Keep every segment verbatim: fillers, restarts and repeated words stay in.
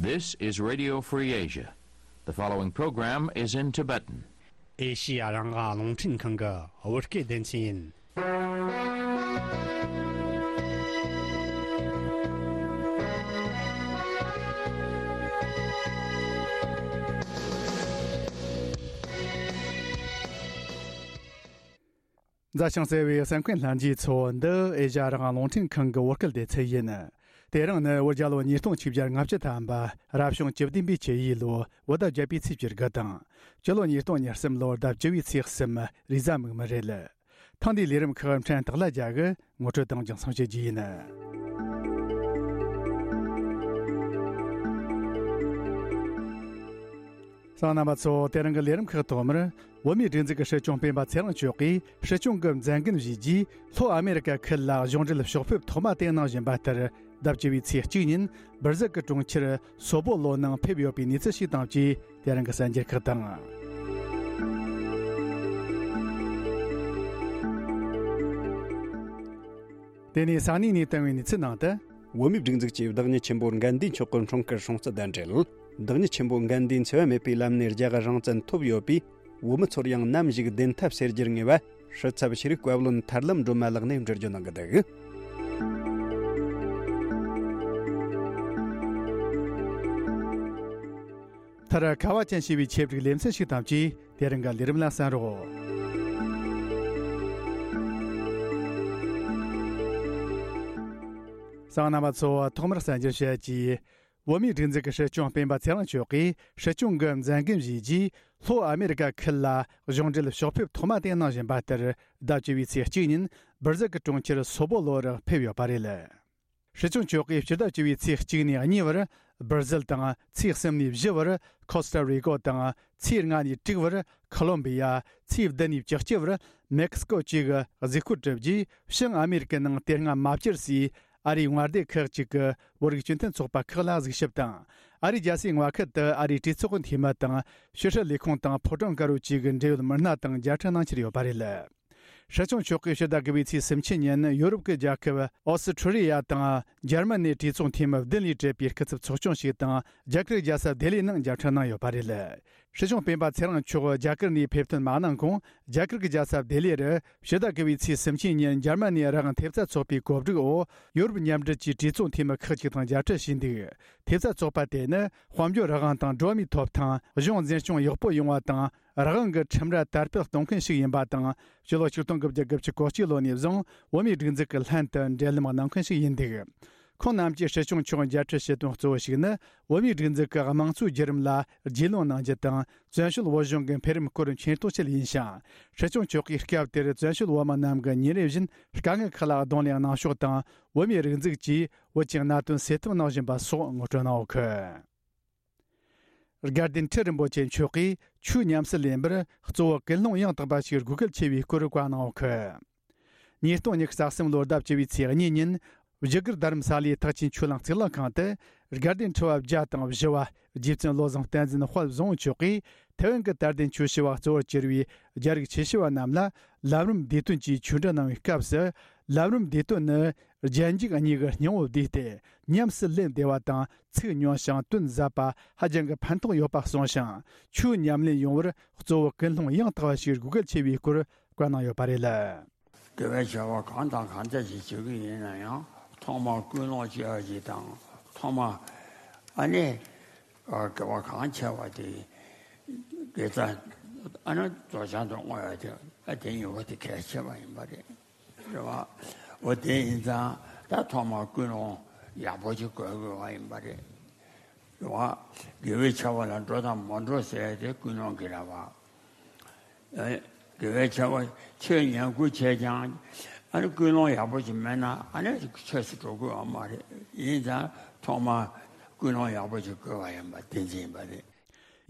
This is Radio Free Asia. The following program is in Tibetan. ཨེ་ཤི་ཡ་རང་དབང་རླུང་འཕྲིན་ཁང་གི་བོད་སྐད་སྡེ་ཚན་ཡིན། མཛའ་ཞིང་བརྩེ་བའི་གསན་མཁན་ལྷན་རྒྱས་ཚོ། འདི་ཨེ་ཤ་ཡ་རང་དབང་རླུང་འཕྲིན་ཁང་གི་བོད་སྐད་སྡེ་ཚན་ཡིན། དེ་རིང་ནི་བོད་རྒྱལ་ལོ་ཉིས་སྟོང་ཆིག་བརྒྱ་ལྔ་བཅུ་ཐམ་པ། རབ་བྱུང་བཅུ་བདུན་པའི་བཅུ་ཡི་ལོ་བོད་ཟླ་བརྒྱད་པའི་ཚེས་བཅུ་དགུ་དང་། སྤྱི་ལོ་ཉིས་སྟོང་ཉེར་གསུམ་ལོར་ཟླ་བཅུ་བའི་ཚེས་གསུམ། རེས་གཟའ་མིག་དམར་རེད། ཐེངས་འདིའི་ལས་རིམ་ཁག་ཕྲན་སྟག་ལྷ་རྒྱལ་གྱིས་ངོ་སྤྲོད་དང་རྒྱང་སྲིང་བྱེད་རྒྱུ་ཡིན། གསན་མཁན་རྣམ་པ་ཚོ། དེ་རིང་གི་ལས་རིམ་ཁག་ཐོག་མར། བོད་མིའི་སྒྲིག་འཛུགས་ཀྱི་སྲིད་སྐྱོང་སྤེན་པ་ཚེ་རིང་མཆོག་གིས་སྲིད་སྐྱོང་གི་མཛད་འགན་བཞེས་རྗེས། ལྷོ་ཨ་མེ་རི་ཀ་ཁུལ་ལ་གཞུང་འབྲེལ་ཕྱོགས་ཕེབས་ཐོག་མ་དེ་གནང་བཞིན་པ་ལྟར། ཟླ་བཅུ་བའི་ཚེས་གཅིག་ཉིན་སྦིར་ཟིལ་གྱི་གྲོང་ཁྱེར་སོ་པོ་ལོ་ནང་ཕེབས་ཡོད་པའི་གནས་ཚུལ་ཞིག་དང་བཅས། དེ་རིང་གི་གསར་འགྱུར་ཁག་དང་། དེ་ནས་ས་གནས་ནས་བཏང་བའི་གནས་ཚུལ་ནང་དུ། བོད་མིའི་སྒྲིག་འཛུགས་ཀྱིས་བདག་ཉིད་ཆེན་པོ་དགའ་ལྡན་ཆོས་ཀྱི་འཁྲུངས་སྐར་སྲུང་བརྩི་དང་འབྲེལ། བདག་ཉིད་ཆེན་པོ་དགའ་ལྡན་འཚེ་བ་མེད་པའི་ལམ་ནས་རྒྱལ་བ་རང་བཙན་ཐོབ་ཡོད་པས། བོད་མི་ཚོར་ཡང་ནམ་ཞིག་བདེན་མཐའ་གསལ་རྒྱུར་ངེས་པ། སྲིད་ཚབ་ཤེས་རིག་བཀའ་བློན་ཐར་ལམ་སྒྲོལ་མ་ལགས་ནས་འགྲེལ་བརྗོད་གནང་གི་འདུག། མཐར། ཁ་བ་ཅན་ཞེས་པའི་ཆེད་བསྒྲིགས་ལེ་ཚན་ཞིག་དང་བཅས། དེ་རིང་གི་ལས་རིམ་ལ་གསན་རོགས། གསན་མཁན་རྣམ་པ་ཚོ། ཐོག་མར་གསར་འགྱུར་བཤད་ཀྱིས། བོད་མིའི་སྒྲིག་འཛུགས་ཀྱི་སྲིད་སྐྱོང་སྤེན་པ་ཚེ་རིང་མཆོག་གིས་སྲིད་སྐྱོང་གི་མཛད་འགན་བཞེས་རྗེས། ལྷོ་ཨ་མེ་རི་ཀ་ཁུལ་ལ་གཞུང་འབྲེལ་ཕྱོགས་ཕེབས་ཐོག་མ་དེ་གནང་བཞིན་པ་ལྟར། ཟླ་བཅུ་བའི་ཚེས་གཅིག་ཉིན་སྦིར་ཟིལ་གྱི་གྲོང་ཁྱེར་སོ་པོ་ལོ་རུ་ཕེབས་ཡོད་པ་རེད། སྲིད་སྐྱོང་མཆོག་གིས་སྤྱི་ཟླ་བཅུ་བའི་ཚེས་གཅིག་ནས་གཉིས་བར། སྦིར་ཟིལ་དང་། ཚེས་གསུམ་ནས་བཞི་བར། ཁོ་སྟ་རི་ཀོ་དང་། ཚེས་ལྔ་ནས་དྲུག་བར། ཁོ་ལོམ་བི་ཡ། ཚེས་བདུན་ནས་བཅུ་གཅིག་བར། མེག་སི་ཀོ་བཅས་ཀྱི་གཟིགས་སྐོར་གྲུབ་རྗེས། བྱང་ཨ་མེ་རི་ཀའི་ནང་དེ་སྔ་མ་བཅར་སའི་ཨ་རིའི་དབང་སྡེ་ཁག་ཅིག་གི་བོད་རིགས་སྤྱི་མཐུན་ཚོགས་པ་ཁག་ལ་གཟིགས་ཞིབ་དང་། ཨ་རིའི་རྒྱལ་སའི་མངའ་ཁུལ་དུ་ཨ་རིའི་གྲོས་ཚོགས་འཐུས་མི་དང་། ཕྱི་སྲིད་ལས་ཁུངས་དང་ཕོ་བྲང་དཀར་པོ་བཅས་ཀྱི་འབྲེལ་ཡོད་མི་སྣ་དང་མཇལ་འཕྲད་གནང་འཆར་ཡོད་པ་རེད། སྲིད་སྐྱོང་མཆོག་གིས་ཕྱི་ཟླ་དགུ་པའི་ཚེས་སུམ་ཅུ་ཉིན་ཡོ་རོབ་ཀྱི་རྒྱལ་ཁབ་ཨོ་སི་ཁྲུ་ལི་ཡ་དང་འཇར་མ་ནིའི་གྲོས་ཚོགས་འཐུས་མི་བདུན་ལས་གྲུབ་པའི་སྐུ་ཚབ་ཚོགས་ཆུང་ཞིག་དང་རྒྱ་གར་རྒྱལ་ས་ལྡི་ལི་ནང་མཇལ་འཕྲད་གནང་ཡོད་པ་རེད། སྲིད་སྐྱོང་སྤེན་པ་ཚེ་རིང་མཆོག་རྒྱ་གར་ནས་ཕེབས་ཐོན་མ་གནང་གོང་། རྒྱ་གར་གྱི་རྒྱལ་ས་ལྡི་ལི་རུ་ཕྱི་ཟླ་དགུ་པའི་ཚེས་སུམ་ཅུ་ཉིན་འཇར་མ་ནིའི་རང་དབང་ཐེབས་རྩ་ཚོགས་པའི་གོ་སྒྲིག་འོག་ཡོ་རོབ་མཉམ་འབྲེལ་གྱི་གྲོས་ཚོགས་འཐུས་མི་ཁག་ཅིག་དང་མཇལ་འཕྲད་བྱས་འདུག། ཐེབས་རྩ་ཚོགས་པ་དེ་ནི་དཔལ་འབྱོར་རང་དབང་དང་འགྲོ་བ་མིའི་ཐོབ་ཐང་། གཞུང་འཛིན་སྐྱོང་ཡག་པོ་ཡོང་བ་དང་། རང་དབང་གི་ཁྲིམས་ར་དར་སྤེལ་གཏོང་མཁན་ཞིག་ཡིན་པ་དང་། སྤྱི་ལོ་ཆིག་སྟོང་དགུ་བརྒྱ་དགུ་བཅུ་གོ་གཅིག་ལོ་ནས་བཟུང་བོད་མིའི་སྒྲིག་འཛུགས་ཀྱི་ལྷན་དུ་འབྲེལ་ལམ་གནང་མཁན་ཞིག་ཡིན་འདུག། ཁོང་རྣམས་ཀྱིས་སྲིད་སྐྱོང་མཆོག་མཇལ་འཕྲད་བྱེད་དོན་གཙོ་བོ་ཞིག་ནི། བོད་མིའི་སྒྲིག་འཛུགས་ཀྱི་དམངས་གཙོའི་བརྒྱུད་རིམ་ལ་རྒྱུས་ལོན་གནང་རྒྱུ་དང་། བཙན་བྱོལ་བོད་གཞུང་གི་འཕེལ་རིམ་སྐོར་མཁྱེན་རྟོགས་བྱེད་ཡིན་ཞིང་། སྲིད་སྐྱོང་མཆོག་གིས་སྐབས་དེར་བཙན་བྱོལ་བོད་མི་རྣམས་ཀྱི་ཉིན་རེ་བཞིན་དཀའ་ངལ་ཁག་ལ་གདོང་ལེན་གནང་ཕྱོགས་དང་། བོད་མིའི་རིག་འཛུགས་ཀྱིས་བོད་ཀྱི་གནད་དོན་སེལ་ཐབས་གནང་བཞིན་པ་སོགས་ངོ་སྤྲོད་གནང་ཡོད་གི། དགའ་ལྡན་ཁྲི་རིན་པོ་ཆེ་མཆོག་གིས་ཆོས་ཉམས་སུ་ལེན་པར་གཙོ་བོ་ཀུན་སློང་ཡང་དག་པ་ཞིག་དགོས་གལ་ཆེ་བའི་སྐོར་བཀའ་གནང་ཡོད་གི། ཉིས་སྟོང་ཉི་ཤུ་རྩ་གསུམ་ལོར་ཟླ་བཅུ་བའི་ཚེས་གཉིས་ཉིན། བཞུགས་སྒར་རྡ་རམ་ས་ལའི་ཐེག་ཆེན་ཆོས་གླིང་གཙུག་ལག་ཁང་དུ། དགའ་ལྡན་ཁྲི་པ་བརྒྱ་དང་བཞི་བ་རྗེ་བཙུན་བློ་བཟང་བསྟན་འཛིན་དཔལ་བཟང་པོ་མཆོག་གིས། ཐའེ་ཝན་གྱི་དད་ལྡན་ཆོས་ཞུ་བ་གཙོ་བོར་གྱུར་བའི་རྒྱ་རིགས་ཆོས་ཞུ་བ་རྣམས་ལ། ལམ་རིམ་བདེ་དོན་གྱི་ཆོས་འབྲེལ་གནང་བའི་སྐབས་སུ། ལམ་རིམ་བདེ་དོན་ནི། རྒྱན་འཇུག་གཉིས་ཀྱི་སྙིང་པོ་བསྡུས་ཏེ། ཉམས་སུ་ལེན་བདེ་བ་དང་། ཚིག་ཉུང་ཞིང་དོན་ཟབ་པ་ཧ་ཅང་གི་ཕན་ཐོགས་ཡོད་པ་གསུངས་ཤིང་། ཆོས་ཉམས་ལེན་ཡོང་བར་གཙོ་བོ་ཀུན་སློང་ཡང་དག་པ་ཞིག་དགོས་གལ་ཆེ་བའི་སྐོར་བཀའ་གནང་ཡོད་པ་རེད། དགེ་བའི་བྱ་བ་གང་དང་གང་འདྲ་ཞིག་བྱེད་ཀྱི་ཡིན་ན་ཡང་ཐོག་མར་ཀུན་སློང་བྱེད་པ་ཞིག་དང་། ཐོག་མར་ཨ་ནི་དགེ་བ་གང་ཆེ་བ་དེ་དགེ་རྩ་ཨ་ནི་རྫོགས་བྱང་དུ་བསྔོ་བ་དེ། ཨ་དེ་གཉིས་པོ་དེ་གལ་ཆེ་བ་ཡིན་པ་རེད། རེད་བ། འོ་དེ་ཡིན་ཙང་ད་ཐོག་མར་ཀུན་སློང་ཡག་པོ་ཞིག་དགོས་དགོས་པ་ཡིན་པ་རེད། རེད་བ། དགེ་བའི་བྱ་བ་ལ་འགྲོ་དང་མ་འགྲོ་ཟེར་ཏེ་ཀུན་སློང་གི་རེད་བ། ཨེ། དགེ་བའི་བྱ་བ་ཆོས་ཉན་ཁུལ་བྱས་ཀྱང་། ཨ་ནི་ཀུན་སློང་ཡག་པོ་ཞིག་མེད་ན་ཨ་ནི་ཆོས་སུ་འགྲོ་དགོས་པ་མ་རེད། ཡིན་ཙང་ཐོག་མར་ཀུན་སློང་ཡག་པོ་ཞིག་དགོས་པ་ཡིན་པ་དེ་འཛིན་པ་རེད།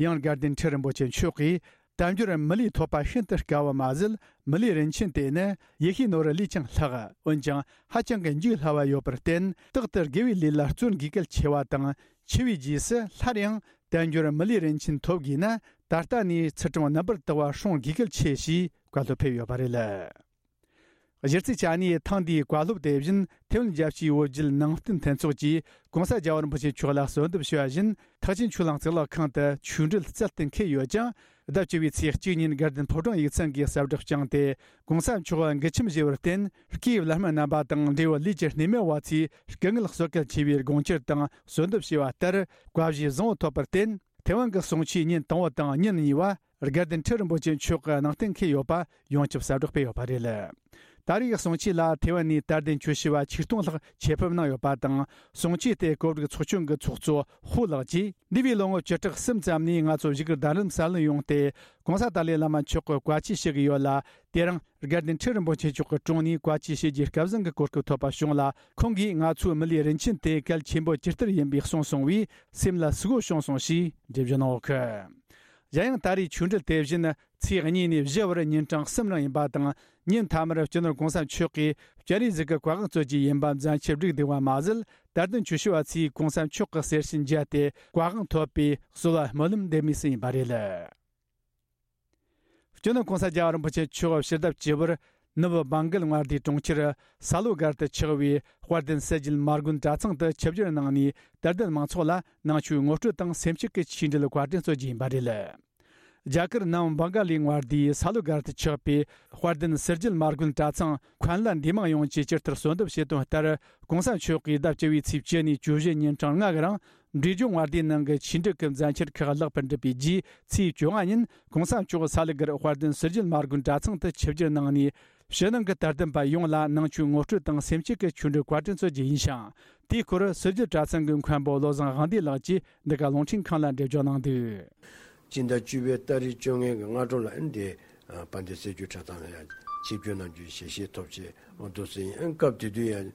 ཡང་དགའ་ལྡན་ཁྲི་རིན་པོ་ཆེ་མཆོག་གིས། དལ་འབྱོར་མི་ལུས་ཐོབ་པ་ཤིན་ཏུ་དཀའ་བ་མ་ཟད། མི་ལུས་རིན་ཆེན་དེ་ནི་ཡེ་ཤེས་ནོར་བུ་ལས་ཀྱང་ལྷག་འོན་ཀྱང་ཧ་ཅང་གི་འཇུག་སླ་བ་ཡོད་པར་བརྟེན། རྟག་ཏུ་དགེ་བའི་ལས་ལ་བརྩོན་དགོས་གལ་ཆེ་བ་དང་། འཆི་བའི་རྗེས་སུ་སླར་ཡང་དལ་འབྱོར་མི་ལུས་རིན་ཆེན་ཐོབ་དགོས་ན། ད་ལྟ་ནས་ཚུལ་ཁྲིམས་རྣམ་པར་དག་པ་སྲུང་དགོས་གལ་ཆེ་ཞེས་བཀའ་སློབ་ཕེབས་ཡོད་པ་རེད། གཞི་རྩའི་ཆ་ནས་ཐེངས་འདིའི་བཀའ་སློབ་དེ་བཞིན་ཐེ་ཝན་རྒྱལ་སྤྱིའི་བོད་བརྒྱུད་ནང་བསྟན་མཐུན་ཚོགས་ཀྱིས་༸གོང་ས་རྒྱལ་བ་རིན་པོ་ཆེ་མཆོག་ལ་གསོལ་འདེབས་ཞུ་བ་བཞིན། ཐེག་ཆེན་ཆོས་གླིང་གཙུག་ལག་ཁང་དུ་ཆོས་འབྲེལ་རྩལ་དུ་འཁེལ་ཡོད་ཅིང་། ཟླ་བཅུ་བའི་ཚེས་གཅིག་ཉིན་དགའ་ལྡན་ཕོ་བྲང་ཡིག་ཚང་གིས་གསལ་བསྒྲགས་བསྐྱངས་ཏེ། ༸གོང་ས་མཆོག་མགུལ་ཆེམས་བཞེས་པར་བརྟེན། སྐུའི་བླ་སྨན་རྣམ་པ་དང་འབྲེལ་ཡོད་ལས་ཀྱི་སྣེ་མོ་བ་ཚོས་སྐུ་ངལ་གསོ་གལ་ཆེ་བའི་དགོངས་འཆར་དང་གསོལ་འདེབས་ཞུས་པ་ལྟར། བཀའ་བཞེས་བཟང་བོ་ཐོབ་པར་བརྟེན། ཐེ་ཝན་གྱི་གསུང་ཆོས་ཉིན་དང་པོ་དང་ཉིན་གཉིས་པ། དགའ་ལྡན་ཁྲི་རིན་པོ་ཆེ་མཆོག་གི་གནང་གཏན་འཁེལ་ཡོད་པ་ཡོངས་ཁྱབ་གསལ་བསྒྲགས་སྤེལ་ཡོད་པ་རེད། ད་རེས་ཀྱི་གསུང་ཆོས་ལ་ཐེ་ཝན་ནས་དད་ལྡན་ཆོས་ཞུ་བ་ཆིག་སྟོང་ལྷག་ཆེད་ཕེབས་གནང་ཡོད་པ་དང་། གསུང་ཆོས་དེ་གོ་སྒྲིག་ཚོགས་ཆུང་གི་ཚོགས་གཙོ་ཧུའུ་ལགས་ཀྱིས། འདས་པའི་ལོ་ངོ་བཅུ་ཕྲག་གསུམ་ཙམ་ནས་ང་ཚོ་བཞུགས་སྒར་རྡ་རམ་ས་ལར་ཡོང་སྟེ། ༸གོང་ས་ཏཱ་ལའི་བླ་མ་མཆོག་གི་བཀའ་ཆོས་ཞུ་གི་ཡོད་ལ། དེ་རིང་དགའ་ལྡན་ཁྲི་རིན་པོ་ཆེ་མཆོག་གི་དྲུང་ནས་བཀའ་ཆོས་ཞུ་རྒྱུའི་སྐལ་བཟང་གི་གོ་སྐབས་ཐོབ་པ་བྱུང་ལ། ཁོང་གིས་ང་ཚོའི་མི་ལུས་རིན་ཆེན་དེ་གལ་ཆེན་པོ་ཇི་ལྟར་ཡིན་པའི་གསུངས་སོང་བས། སེམས་ལ་ཟུག་པོ་བྱུང་སོང་ཞེས་འགྲེལ་བརྗོད་གནང་ཡོད་གི། གཞན་ཡང་ད་རེས་ཆོས་འབྲེལ་དེ་བཞིན་ཚེས་གཉིས་ནས་བཞི་བར་ཉིན་གྲངས་གསུམ་རིང་ཡིན་པ་དང་། ཉིན་མཐའ་མར་སྤྱི་ནོར་༸གོང་ས་མཆོག་གིས་སྤྱན་རས་གཟིགས་ཀྱི་བཀའ་དབང་སྩོལ་རྒྱུ་ཡིན་པ་མཛད་འཆར་བསྒྲིགས་འདུག་པ་མ་ཟད། དད་ལྡན་ཆོས་ཞུ་བ་ཚོས་༸གོང་ས་མཆོག་གི་གསེར་ཕྱེ་མཇལ་ཏེ་བཀའ་དབང་ཐོབ་པའི་གསོལ་བ་སྨོན་ལམ་འདེབས་མུས་སུ་ཡིན་པ་རེད། སྤྱི་ནོར་༸གོང་ས་རྒྱལ་བ་རིན་པོ་ཆེ་མཆོག་ཕྱི་ཟླ་བཅུ་པར་ནུབ་བྷང་གལ་མངའ་སྡེའི་གྲོང་ཁྱེར་ས་ལོ་སྒར་དུ་ཆགས་པའི་དཔལ་ལྡན་གསེར་བརྗིད་མ་དགོན་གྲྭ་ཚང་དུ་ཆིབས་བསྒྱུར་གནང་ནས། དད་ལྡན་མང་ཚོགས་ལ་ནང་ཆོས་ངོ་སྤྲོད་དང་སེམས་བསྐྱེད་ཀྱི་ཆོས་འབྲེལ་བཀའ་དྲིན་སྩོལ་རྒྱུ་ཡིན་པ་རེད། རྒྱ་གར་ནང་བྷང་ག་ལི་མངའ་སྡེའི་ས་ལོ་སྒར་དུ་ཆགས་པའི་དཔལ་ལྡན་གསེར་བརྗིད་མ་དགོན་གྲྭ་ཚང་མཁན་བླ་འདུས་མང་ཡོངས་ཀྱིས་ཇི་ལྟར་གསོལ་འདེབས་བྱས་དོན་ལྟར། ༸གོང་ས་མཆོག་གིས་ཟླ་བཅུ་བའི་ཚེས་བཅུ་ནས་བཅུ་བཞི་ཉིན་གྲངས་ལྔ་གི་རིང་། འབྲས་ལྗོངས་མངའ་སྡེའི་ནང་གི་ཆོས་འབྲེལ་གྱི་མཛད་འཆར་ཁག་ལེགས་པར་འགྲུབ་པའི་རྗེས། ཚེས་བཅོ་ལྔ་ཉིན་༸གོང་ས་མཆོག་ས་ལུ་སྒར་དཔལ་ལྡན་གསེར་བརྗིད་མ་དགོན་གྲྭ་ཚང་དུ་ཆིབས་བསྒྱུར་གནང་ནས། ཕྱི་ནང་གི་དད་ལྡན་པ་ཡོངས་ལ་ནང་ཆོས་ངོ་སྤྲོད་དང་སེམས་བསྐྱེད་ཀྱི་ཆོས་འབྲེལ་བཀའ་དྲིན་སྩོལ་རྒྱུ་ཡིན་ཞིང་། དེའི་སྐོར་གསེར་བརྗིད་གྲྭ་ཚང་གི་མཁན་པོ་བློ་བཟང་དབང་འདུས་ལགས་ཀྱིས་འདི་ག་རླུང་འཕྲིན་ཁང་ལ་འགྲེལ་བརྗོད་གནང་འདུག་སྤྱི་ཟླ་བཅུ་པའི་ཏ་རིག་བཅོ་ལྔ་གི་སྔ་དྲོ་ལ་ཨ་ནི་དེ་དཔལ་ལྡན་གསེར་བརྗིད་གྲྭ་ཚང་ལ་ཡང་ཆིབས་བསྒྱུར་གནང་རྒྱུའི་ཞལ་བཞེས་ཐོབ་ཆེད་འོ་འདུག་སེ་ཡིན། ཨ་ནི་སྐབས་དེ་དུས་ཡང་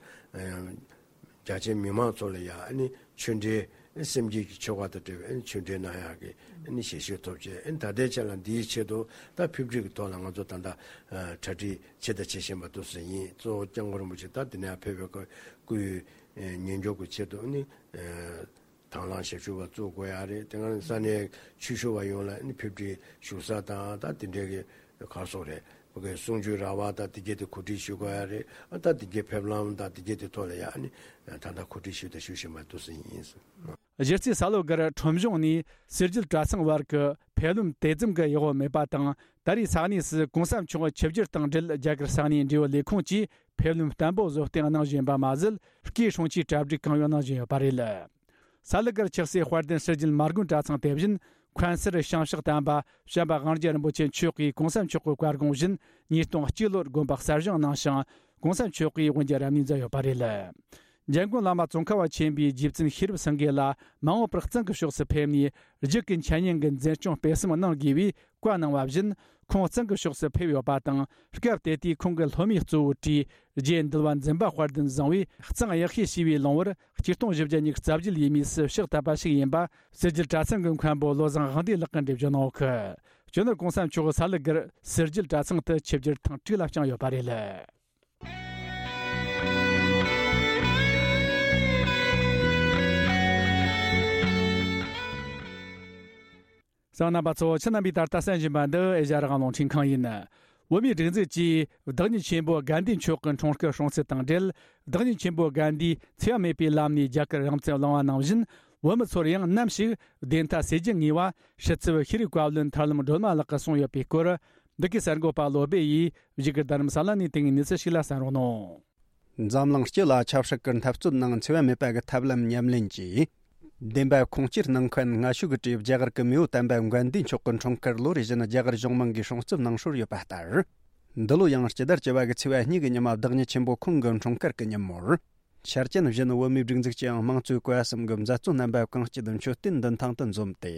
རྒྱ་ཆེའི་མི་མང་ཚོ་ལ་ཡང་ཨ་ནི་ཆོས་འབྲེལ་སེམས་བསྐྱེད་ཀྱི་ཆོ་ག་དང་འབྲེལ་བའི་ཨ་ནི་ཆོས་འབྲེལ་གནང་ཡག་གི་ཨ་ནི་ཞལ་བཞེས་ཐོབ་ཆེད། ཨ་ནི་ད་ལྟའི་ཆ་ལ་འདིའི་ཆེད་དུ་ད་ཕེབས་སྒྲིག་གི་ཐོག་ལ་ང་ཚོ་ད་ལྟ་གྲ་སྒྲིག་བྱེད་དང་བྱེད་བཞིན་པ་འདུག་སེ་ཡིན། གཙོ་བོ་སྐྱབས་མགོན་རིན་པོ་ཆེ་ད་འདི་ནས་ཕེབས་པའི་སྐུའི་ཉིན་འགྱུར་གྱི་ཆེད་དུ་ཨ་ནི། དང་བླངས་ཞབས་ཞུ་བ་བཙུགས་དགོས་ཡ་རེད། དེ་སྔ་ས་གནས་ཆོས་ཞུ་བ་ཡོངས་ལ་ཨ་ནི་ཕེབས་སྒྲིག་བཞུགས་ས་དང་ད་དེ་འདྲའི་གི་གར་སོང་རེད། བོད་ཀྱི་གསུང་ཆོས་ར་བ་དང་དེ་གྱད་དེ་གོ་སྒྲིག་ཞུ་དགོས་ཡ་རེད། ཨ་ད་དེ་གྱད་ཕེབས་ལམ་དང་དེ་གྱད་དེ་ཐོག་ལ་ཡ་ཨ་ནི་ད་ལྟ་གོ་སྒྲིག་ཞུ་དང་ཞུ་བཞིན་པ་འདུག་སེ་ཡིན། གཞི་རྩའི་ས་ལོ་སྒར་ཁྲོམ་གཞུང་ནས་གསེར་བརྗིད་གྲྭ་ཚང་བར་གྱི་ཕེབས་ལམ་དེ་ཙམ་གྱི་ཡག་པོ་མེད་པ་དང་། ད་རེས་ས་གནས་སུ་༸གོང་ས་མཆོག་ཆིབས་བསྒྱུར་དང་འབྲེལ་རྒྱ་གར་ས་གནས་འབྲེལ་ཡོད་ལས་ཁུངས་ཀྱིས་ཕེབས་ལམ་བརྟན་པོ་བཟོ་སྟེ་གནང་བཞིན་པ་མ་ཟད། སྐུའི་སྲུང་བརྩིའི་གྲ་སྒྲིག་གང་ཡོད་གནང་བཞིན་ཡོད་པ་རེད། ས་ལུ་སྒར་ཆགས་སའི་དཔལ་ལྡན་གསེར་བརྗིད་མ་དགོན་གྲྭ་ཚང་དེ་བཞིན་མཁན་ཟུར་ཞིང་གཤེགས་དམ་པ་བྱམས་པ་དབང་རྒྱལ་རིན་པོ་ཆེ་མཆོག་གིས་༸གོང་ས་མཆོག་གི་བཀའ་དགོངས་བཞིན་ཉིས་སྟོང་གཅིག་ལོར་དགོན་པ་གསར་བཞེངས་གནང་ཞིང་༸གོང་ས་མཆོག་གིས་དབུ་འབྱེད་རབ་གནས་མཛད་ཡོད་པ་རེད། འཇམ་མགོན་བླ་མ་ཙོང་ཁ་པ་ཆེན་པོའི་རྗེ་བཙུན་ཤེས་རབ་སེང་གེ་ལ་མ་འོངས་པར་གཙང་གི་ཕྱོགས་སུ་ཕེབས་ནས་རྒྱུད་ཀྱི་འཆད་ཉན་གྱི་འཛིན་སྐྱོང་སྤེལ་གསུམ་གནང་དགོས་པའི་བཀའ་གནང་བ་བཞིན། ཁོང་གཙང་གི་ཕྱོགས་སུ་ཕེབས་ཡོད་པ་དང་། སྐབས་དེ་དུས་ཁོང་གི་སློབ་མའི་གཙོ་བོ་གྲས་རྗེ་འདུལ་བ་འཛིན་པ་དཔལ་ལྡན་བཟང་བོས་གཙང་གཡག་ཤེས་ཞེས་པའི་ལུང་བར་ཆིག་སྟོང་བཞི་བརྒྱ་ཉི་ཤུ་རྩ་བརྒྱད་ཡས་མས་སུ་ཕྱག་བཏབ་པ་ཞིག་ཡིན་པ་གསེར་བརྗིད་གྲྭ་ཚང་གི་མཁན་པོ་བློ་བཟང་དབང་འདུས་ལགས་ཀྱིས་འགྲེལ་བརྗོད་གནང་ཡོད་གི། སྤྱི་ནོར་༸གོང་ས་མཆོག་ས་ལུ་སྒར་གསེར་བརྗིད་གྲྭ་ཚང་དུ་ཆིབས་བསྒྱུར་ཐེངས་དྲུག་ལ་བསྐྱངས་ཡོད་པ་རེད། གསན་མཁན་རྣམ་པ་ཚོ། ཁྱེད་རྣམ་པས་ད་ལྟ་གསན་བཞིན་པ་འདི་ཨེ་ཤ་ཡ་རང་དབང་རླུང་འཕྲིན་ཁང་ཡིན། བོད་མིའི་སྒྲིག་འཛུགས་ཀྱིས་བདག་ཉིད་ཆེན་པོ་དགའ་ལྡན་མཆོག་གི་འཁྲུངས་སྐར་སྲུང་བརྩི་དང་འབྲེལ། བདག་ཉིད་ཆེན་པོ་དགའ་ལྡན་འཚེ་བ་མེད་པའི་ལམ་ནས་རྒྱ་གར་རང་བཙན་བླངས་པ་ནང་བཞིན། བོད་མི་ཚོར་ཡང་ནམ་ཞིག་བདེན་མཐའ་གསལ་རྒྱུ་ངེས་པ་ཤེས་ཚུལ་ཤེས་རིག་བཀའ་བློན་ཐར་ལམ་སྒྲོལ་མ་ལགས་ཀྱིས་གསུངས་ཡོད་པའི་སྐོར། འདི་གའི་གསར་འགོད་པ་བློ་སྦེ་ཡིས་བཞུགས་སྒར་རྡ་རམ་ས་ལ་ནས་དེ་སྔའི་གནས་ཚུལ་ཞིག་ལ་གསན་རོགས་གནང་། འཛམ་གླིང་སྤྱི་ལ་ཆབ་སྲིད་ཀྱི་འཐབ་རྩོད་ནང་འཚེ་བ་མེད་པ་གི་ཐབས་ལམ་ཉམས་ལེན་གྱིས། བདེན་པ་ཁུངས་སྐྱེལ་གནང་མཁན་སྔ་ཤོས་ཀྱི་གྲས་རྒྱ་གར་གྱི་མེས་པོ་དམ་པ་དགའ་ལྡན་མཆོག་གི་འཁྲུངས་སྐར་ལོ་རེ་བཞིན་རྒྱ་གར་གཞུང་མང་གིས་སྲུང་བརྩི་གནང་སྲོལ་ཡོད་པ་ལྟར། འདི་ལོ་ཡང་སྤྱི་ཟླ་བཅུ་པ་གི་ཚེས་པ་གཉིས་ཀྱི་ཉི་མ་བདག་ཉིད་ཆེན་པོ་ཁོང་གི་འཁྲུངས་སྐར་གྱི་ཉིན་མོར། འཆར་ཅན་བཞིན་བོད་མིའི་སྒྲིག་འཛུགས་ཀྱིས་དམངས་གཙོའི་བཀའ་གསུམ་གྱི་མཛད་གཙོ་རྣམ་པ་གང་སྐྱིད་མཆོད་རྟེན་མདུན་ཐང་དུ་འཛོམས་ཏེ།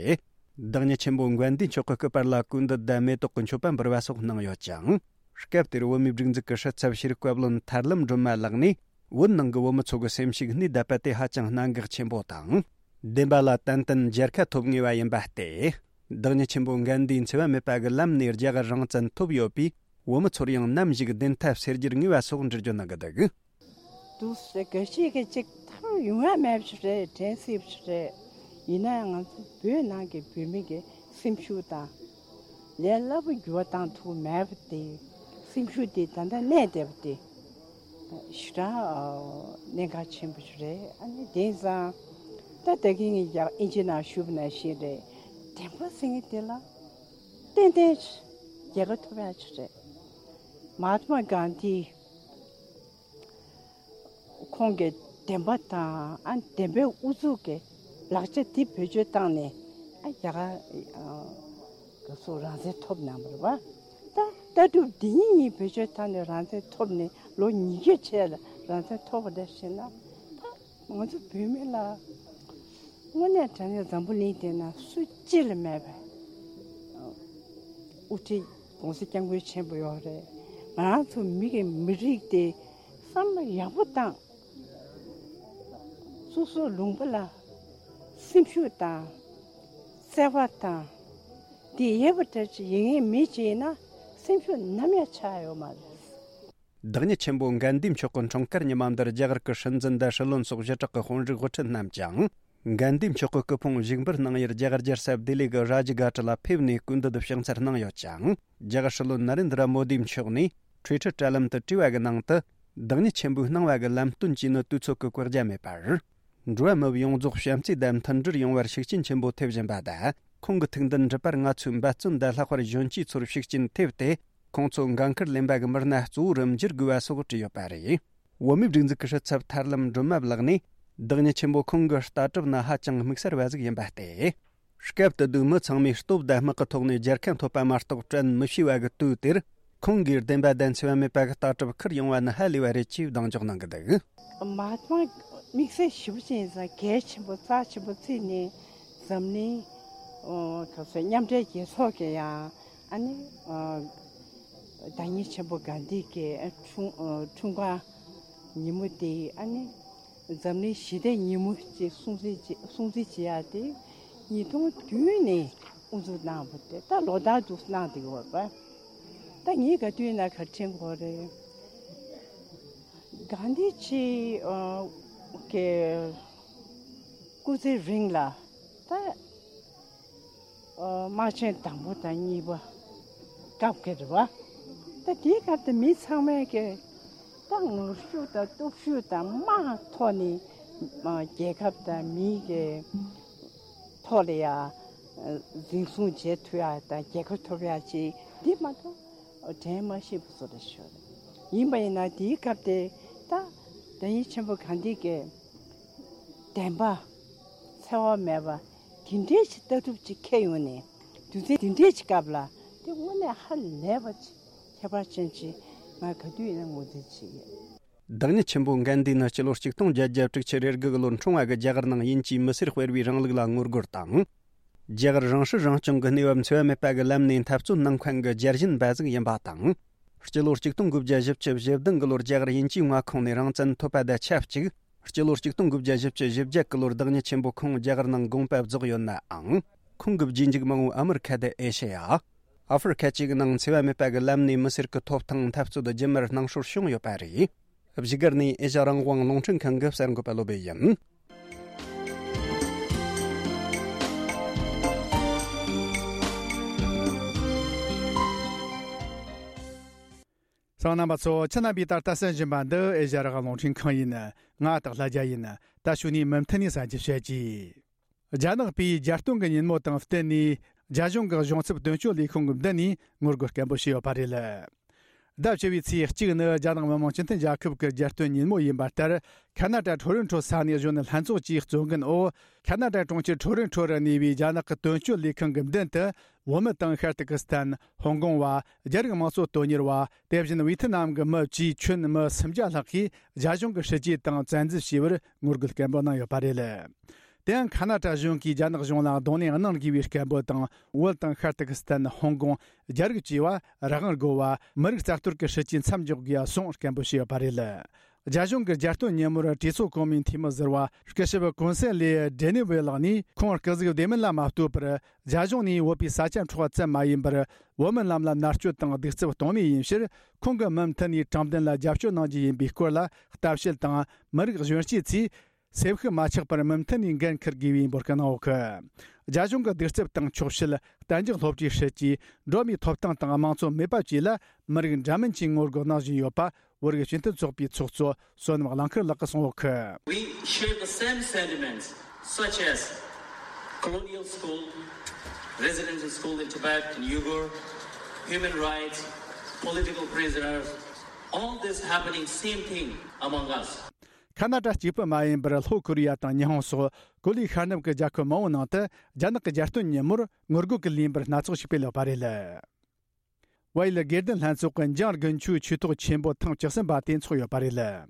བདག་ཉིད་ཆེན་པོ་དགའ་ལྡན་མཆོག་གི་སྐུ་པར་ལ་གོས་འདི་དང་མེ་ཏོག་གི་མཆོད་པ་འབུལ་བ་སོགས་གནང་ཡོད་ཅིང་། སྐབས་དེར་བོད་མིའི་སྒྲིག་འཛུགས་ཀྱི་སྲིད་ཚབ་ཤེས་རིག་བཀའ་བློན་ཐར་ལམ་སྒྲོལ་མ་ལགས་ནས། བོད་ནང་གི་བོད་མི་ཚོ་གི་སེམས་ཤུགས་སྣེ་ལྡབ་པ་དེ་ཧ་ཅང་གནད་འགག་ཆེན་པོ་དང་། བདེན་པ་ལ་ཏན་ཏན་མཇལ་ཁ་ཐོབ་ངེས་པ་ཡིན་པ་སྟེ། བདག་ཉིད་ཆེན་པོ་དགའ་ལྡན་འཚེ་བ་མེད་པ་གི་ལམ་ནས་རྒྱ་གར་རང་བཙན་ཐོབ་ཡོད་པས། བོད་མི་ཚོར་ཡང་ནམ་ཞིག་བདེན་མཐའ་གསལ་རྒྱུར་ངེས་པ་སོགས་འགྲེལ་བརྗོད་གནང་གི་འདུག་འདུག་སེ་ག་ཤེད་ཀྱི་གཅིག་ཐར་ཡོང་བ་མེད་པ་རེད། དྲན་སྲིད་པ་རེད། ཡིན་ན་ང་ཚོ་བོད་ནང་གི་བོད་མི་གི་སེམས་ཤུགས་དང་། ལས་སླ་པོ་འགྱུར་བ་བཏང་ཐུབ་མེད་པ་དེ་ སེམས་ཤུགས་དེ་ད་ལྟ་གནས་བསྡད་པ་དེ་ཞེ་དྲག་གནད་འགག་ཆེན་པོ་ཞིག་རེད། ཨ་ནི་དེང་སང་ད་ད་གིན་ངས་ཡག་ཨིན་ཇི་ནང་ཞུས་པ་ནང་བཞིན་རེད། བདེན་པ་ཟེར་མཁན་དེ་ལ་ཏན་ཏན་རྒྱལ་ཁ་ཐོབ་ཡག་ཅིག་རེད། མ་ཧཱ་ཏྨ་གྷན་དྷི་ཁོང་གི་བདེན་པ་དང་ཨ་བདེན་པའི་ཨུ་ཚུགས་ཀྱི་ལག་ཆ་འདི་བེད་སྤྱོད་བཏང་ནས་ཨ་རྒྱ་གར་ག་སོ་རང་བཙན་ཐོབ་གནང་བ་རེད་བ། ད་ལྟ་གྲུབ་འདི་གཉིས་བེད་སྤྱོད་བཏང་ནས་རང་བཙན་ཐོབ་ནས་ལོ་ཉི་ཤུ་བྱས་ལ་རང་བཙན་ཐོབ་པ་འདྲ་ཞིག་ན། ད་ང་ཚོ་བོད་མི་ལ་དངོས་གནས་དྲང་གནས་འཛམ་བུ་གླིང་འདི་ན་སུ་གཅིག་ལ་མེད་པའི་དབུ་ཁྲིད་༸གོང་ས་༸སྐྱབས་མགོན་ཆེན་པོ་ཡོད་རེད། ང་རང་ཚོ་མི་གི་མི་རིགས་དེ་བསམ་བློ་ཡག་པོ་བཏང་། སོ་སོའི་ལུང་པ་ལ་སེམས་ཤུགས་དང་བརྩེ་བ་དང་དེ་ཡོད་པ་འདྲ་ཅིག་ཡིན་ངེས་མི་ཅིག་ཡིན་ན་སེམས་ཤུགས་ནམ་ཡང་ཆག་ཡོད་མ་རེད། བདག་ཉིད་ཆེན་པོ་གྷན་དྷི་མཆོག་གི་འཁྲུངས་སྐར་ཉི་མ་འདིར་རྒྱ་གར་གྱི་སྲིད་འཛིན་དང་སྲིད་བློན་སོགས་ཞི་དྲག་གི་དཔོན་རིགས་དབུ་ཁྲིད་རྣམས་ཀྱང་གྷན་དྷི་མཆོག་གི་སྐུ་ཕུང་བཞུགས་འབུལ་གནང་ཡུལ་རྒྱ་གར་རྒྱལ་ས་ལྡི་ལི་གི་རཱ་ཇི་གྷ་ཊ་ལ་ཕེབས་ནས་སྐུ་མདུན་དུ་ཕྱག་འཚལ་གནང་ཡོད་ཅིང་། རྒྱ་གར་སྲིད་བློན་ནཱ་རེན་དྲ་མོ་དི་མཆོག་ནས་ཊུའི་ཊར་དྲ་ལམ་དུ་བྲིས་པ་གི་ནང་དུ། བདག་ཉིད་ཆེན་པོས་གནང་བ་གི་ལམ་སྟོན་གྱིས་ནི་དུས་ཚོད་ཀྱི་བཀག་རྒྱ་མེད་པར། འགྲོ་བ་མི་ཡོངས་རྫོགས་བྱམས་བརྩེ་དང་མཐུན་སྒྲིལ་ཡོང་བར་ཤུགས་རྐྱེན་ཆེན་པོ་ཐེབས་བཞིན་པ་དང་། ཁོང་གི་ཐུགས་འདུན་འགྲུབ་པར་ང་ཚོས་འབད་བརྩོན་དང་ལྷག་པར་གཞོན་སྐྱེས་ཚོར་ཤུགས་རྐྱེན་ཐེབས་ཏེ། ཁོང་ཚོ་འགན་འཁུར་ལེན་པ་གི་མི་སྣ་གཙོ་བོ་རུ་འགྱུར་དགོས་པ་སོགས་བྲིས་ཡོད་པ་རེད། བོད་མིའི་སྒྲིག་འཛུགས་ཀྱི་སྲིད་ཚབ་ཐར་ལམ་སྒྲོལ་མ་ལགས་ནས། བདག་ཉིད་ཆེན་པོ་ཁོང་གི་ལྟ་གྲུབ་ནི་ཧ་ཅང་དམིགས་བསལ་བ་ཟིག་ཡིན་པ་སྟེ། སྐབས་དེ་དུས་མི་ཚང་མས་སྟོབས་དང་དམག་གི་ཐོག་ནས་རྒྱལ་ཁ་ཐོབ་པ་མ་གཏོགས་བཀྲ་མི་ཤིས་པ་གི་དུས་དེར། ཁོང་གིས་བདེན་པ་དང་འཚེ་བ་མེད་པ་གི་ལྟ་གྲུབ་ཁུར་ཡོང་བ་ནི་ཧ་ལས་པ་རེད་ཅེས་གདེང་འཇོག་གནང་གི་འདུག་མ་ཧཱ་ཏྨ་དམིགས་བསལ་ཞེ་པོ་ཅན་ཡིན་ཙང་གལ་ཆེན་པོ་རྩ་ཆེན་པོ་བརྩིས་ནས་འཛམ་གླིང་། ཨོ། ག་ཚོད་མཉམ་འབྲེལ་རྒྱལ་ཚོགས་ཀྱི་ཡང་ཨ་ནི། ཨོ། བདག་ཉིད་ཆེན་པོ་གྷན་དྷི་གི་འཁྲུངས་འཁྲུངས་སྐར་ཉིན་མོ་དེ་ཨ་ནི་འཛམ་གླིང་ཞི་བདེ་ཉིན་མོ་ཅེས་སྲུང་བརྩི་བྱེད་སྲུང་བརྩི་བྱེད་ཡག་དེ་ཉིས་སྟོང་བདུན་ནས་དབུ་འཛུགས་གནང་བ་དེ་ད་ལོ་ལྟར་དུ་གནང་བསྡད་ཡོད་པ། ད་ངས་ག་དུས་ན་ག་དྲན་གོ་རེད། གྷན་དྷི་ཆེ་གི་སྐུ་ཚེ་རིང་ལ་ད། དམག་ཆེན་དང་པོ་དང་གཉིས་པ་སྐབས་ཀྱི་རེད་བ། ད་དེའི་སྐབས་དུ་མི་ཚང་མས་ཀྱི་ད་ངར་ཤུགས་དང་སྟོབས་ཤུགས་དང་དམག་ཐོག་ནས་རྒྱལ་ཁབ་དང་མིའི་གི་ཐོག་ལ་ཡ་འཛིན་བཟུང་བྱེད་ཐུབ་ཡ་དང་རྒྱལ་ཁ་ཐོབ་ཡ་ཅིག་འདི་མ་གཏོགས་དྲན་མ་ཤེས་པ་བཟོ་འདྲ་ཞིག་རེད། ཡིན་པ་ཡིན་ན་དེའི་སྐབས་དེ་ད་བདག་ཉིད་ཆེན་པོ་གྷན་དྷི་གི་བདེན་པ་འཚེ་བ་མེད་པ་དེ་འདྲའི་ཅིག་ལྟ་གྲུབ་ཅིག་འཁྱེར་ཡོང་ནས་དུས་ཚོད་དེ་འདྲའི་ཅིག་སྐབས་ལ་དེ་དངོས་གནས་ཧ་ལས་པ་ཅིག་ཁྱད་པར་ཅན་ཅིག་ང་ག་དུས་ཡིན་ན་ངོས་འཛིན་བྱེད་ཀྱི་ཡོད། བདག་ཉིད་ཆེན་པོ་གྷན་དྷི་ནི་སྤྱི་ལོ་ཆིག་སྟོང་བརྒྱད་བརྒྱ་དྲུག་ཅུ་རེ་དགུ་གི་ལོར་འཁྲུངས་པ་གི་རྒྱ་གར་ནང་དབྱིན་ཇིའི་མི་སེར་སྤེལ་བའི་རིང་ལུགས་ལ་ངོ་རྒོལ་དང་། རྒྱ་གར་རང་སྲིད་རང་སྐྱོང་གི་གནས་བབ་འཚེ་བ་མེད་པ་གི་ལམ་ནས་འཐབ་རྩོད་གནང་མཁན་གྱི་རྒྱལ་ཞེན་པ་ཟིག་ཡིན་པ་དང་། སྤྱི་ལོ་ཆིག་སྟོང་དགུ་བརྒྱ་བཞི་བཅུ་བཞི་བདུན་གི་ལོར་རྒྱ་གར་དབྱིན་ཇིའི་མངའ་ཁོངས་ནས་རང་བཙན་ཐོབ་པ་དང་ཆབས་ཅིག་སྤྱི་ལོ་ཆིག་སྟོང་དགུ་བརྒྱ་བཞི་བཅུ་ཞེ་བརྒྱད་གི་ལོར་བདག་ཉིད་ཆེན་པོ་ཁོང་རྒྱ་གར་ནང་དགོངས་པ་རྫོགས་ཡོད་ནའང་། ཁོང་གི་རྗེས་འཇུག་མང་བོ་ཨ་མི་རི་ཁ་དང་ཨེ་ཤེ་ཡ། ཨ་ཧྥེ་རི་ཁ་བཅས་ཀྱི་ནང་འཚེ་བ་མེད་པ་གི་ལམ་ནས་མི་སེར་གྱི་ཐོབ་ཐང་འཐབ་རྩོད་རྒྱུན་མར་སྣང་སྲོལ་བྱུང་ཡོད་པ་རེད། བཞུགས་སྒར་ནས་ཨེ་ཤ་རང་དབང་རླུང་འཕྲིན་ཁང་གི་གསར་འགོད་པ་བློ་བྷེ་ཡིན། གསན་མཁན་རྣམ་པ་ཚོ། ཁྱེད་རྣམ་པས་ད་ལྟ་གསན་བཞིན་པ་འདི་ཨེ་ཤ་རང་དབང་རླུང་འཕྲིན་ཁང་ཡིན། ང་སྟག་ལྷ་རྒྱལ་ཡིན། ད་ཞུ་ནས་མུ་མཐུད་ནས་གསན་རྒྱུ་བྱེད་ཀྱི། རྒྱ་ནག་པས་རྒྱལ་སྟོན་གྱི་ཉིན་མོ་དང་བསྟུན་ནས། རྒྱ་གཞུང་གི་གཞུང་ཚབ་དོན་གཅོད་ལས་ཁུངས་ཀྱི་མདུན་ནས་ངོ་རྒོལ་སྐད་འབོད་བྱས་ཡོད་པ་རེད། ཟླ་བཅུ་པའི་ཚེས་གཅིག་ནི་རྒྱ་ནག་མི་དམངས་སྤྱི་མཐུན་རྒྱལ་ཁབ་ཀྱི་རྒྱལ་སྟོན་ཉིན་མོ་ཡིན་པ་ལྟར། ཁ་ན་ཏྲ་ཁྲོ་རོན་ཁྲོ་ས་གནས་གཞོན་ནུ་ལྷན་ཚོགས་ཀྱིས་གཙོ་འགན་འོག་ཁ་ན་ཏྲ་གྲོང་ཁྱེར་ཁྲོ་རོན་ཁྲོ་རུ་གནས་པའི་རྒྱ་ནག་གི་དོན་གཅོད་ལས་ཁང་གི་མདུན་དུ། བོད་མི་དང་ཤར་ཏུར་ཀི་སི་ཐན། ཧོང་ཀོང་བ། རྒྱ་རིགས་དམངས་གཙོ་དོན་གཉེར་བ། དེ་བཞིན་ཝེ་ཐི་ནམ་གྱི་མི་བཅས་ཁྱོན་མི་སུམ་བརྒྱ་ལྷག་གིས་རྒྱ་གཞུང་གི་སྲིད་ཇུས་དང་བཙན་འཛུལ་བྱས་པར་ངོ་རྒོལ་སྐད་འབོད་གནང་ཡོད་པ་རེད། དེ་ཡང་ཁ་ན་ཏྲ་གཞུང་གིས་རྒྱ་ནག་གཞུང་ལ་གདོང་ལེན་གནང་དགོས་པའི་སྐད་འབོད་དང་། བོད་དང་ཤར་ཏུར་ཀི་སི་ཐན། ཧོང་ཀོང་། རྒྱ་རིགས་བཅས་པ་རང་དབང་དགོས་པ། མི་རིགས་རྩ་གཏོར་གྱི་སྲིད་ཇུས་མཚམས་འཇོག་དགོས་པ་སོགས་སྐད་འབོད་བྱས་ཡོད་པ་རེད། རྒྱ་གཞུང་གི་རྒྱལ་སྟོན་ཉིན་མོར་གྲོས་ཚོགས་གོང་མའི་འཐུས་མི་ཟུར་པ་སྐུ་ཞབས་ཀུན་སན་ལེ་ཌེ་ནི་ཝེ་ལགས་ནས། ཁོང་སྐུ་གཟུགས་བདེ་མིན་ལ་མ་ལྟོས་པར། རྒྱ་གཞུང་ནས་བོད་པའི་ས་ཆ་འཕྲོག་པ་ཙམ་མ་ཡིན་པར། བོད་མི་རྣམས་ལ་མནར་གཅོད་དང་གདུག་རྩུབ་གཏོང་མུས་ཡིན་ཕྱིར། ཁོང་གིས་མུ་མཐུད་ནས་དྲང་བདེན་ལ་རྒྱབ་སྐྱོར་གནང་རྒྱུ་ཡིན་པའི་སྐོར་ལ་ལྟ་བཤལ་དང་། མི་རིགས་གཞོན་སྐྱེས་ཚོས་སེམས་ཤུགས་མ་ཆག་པར་མུ་མཐུད་ནས་འགན་འཁུར་དགོས་པའི་འབོད་སྐུལ་གནང་ཡོད་གི། རྒྱ་གཞུང་གི་གདུག་རྩུབ་དང་འཁྱོག་བཤད། གཏན་འཇགས་སློབ་གྲྭའི་སྲིད་ཇུས། འགྲོ་བ་མིའི་ཐོབ་ཐང་དང་དམངས་གཙོ་མེད་པ་བཅས་ལ་མི་རིགས་འདྲ་མིན་གྱིས་ངོ་རྒོལ་གནང་བཞིན་ཡོད་པ། བོད་རིགས་སྤྱི་མཐུན་ཚོགས་པའི་ཚོགས་གཙོ་བསོད་ནམས་གླང་མཁར་ལགས་ཀྱིས་གསུངས་ཡོད། We share the same sentiments, such as colonial school, residential school in Tibet and Uyghur, human rights, political prisoners, all this happening, same thing among us. ཁ་ན་ཌ་གཅིག་པུ་མ་ཡིན་པར། ལྷོ་ཀོ་རི་ཡ་དང་ཉི་ཧོང་སོགས་གོ་ལའི་ཤར་ནུབ་ཀྱི་རྒྱལ་ཁབ་མང་བོའི་ནང་དུ་རྒྱ་ནག་གི་རྒྱལ་སྟོན་ཉིན་མོར་ངོ་རྒོལ་གྱི་ལས་འགུལ་སྣ་ཚོགས་ཤིག་སྤེལ་ཡོད་པ་རེད། བལ་ཡུལ་དགེ་ལྡན་ལྷན་ཚོགས་ཀྱི་འཇང་དགུན་ཆོས་ཆོས་ཐོག་ཆེན་པོ་ཐེངས་བཅུ་གསུམ་པ་དེ་འཚོགས་ཡོད་པ་རེད།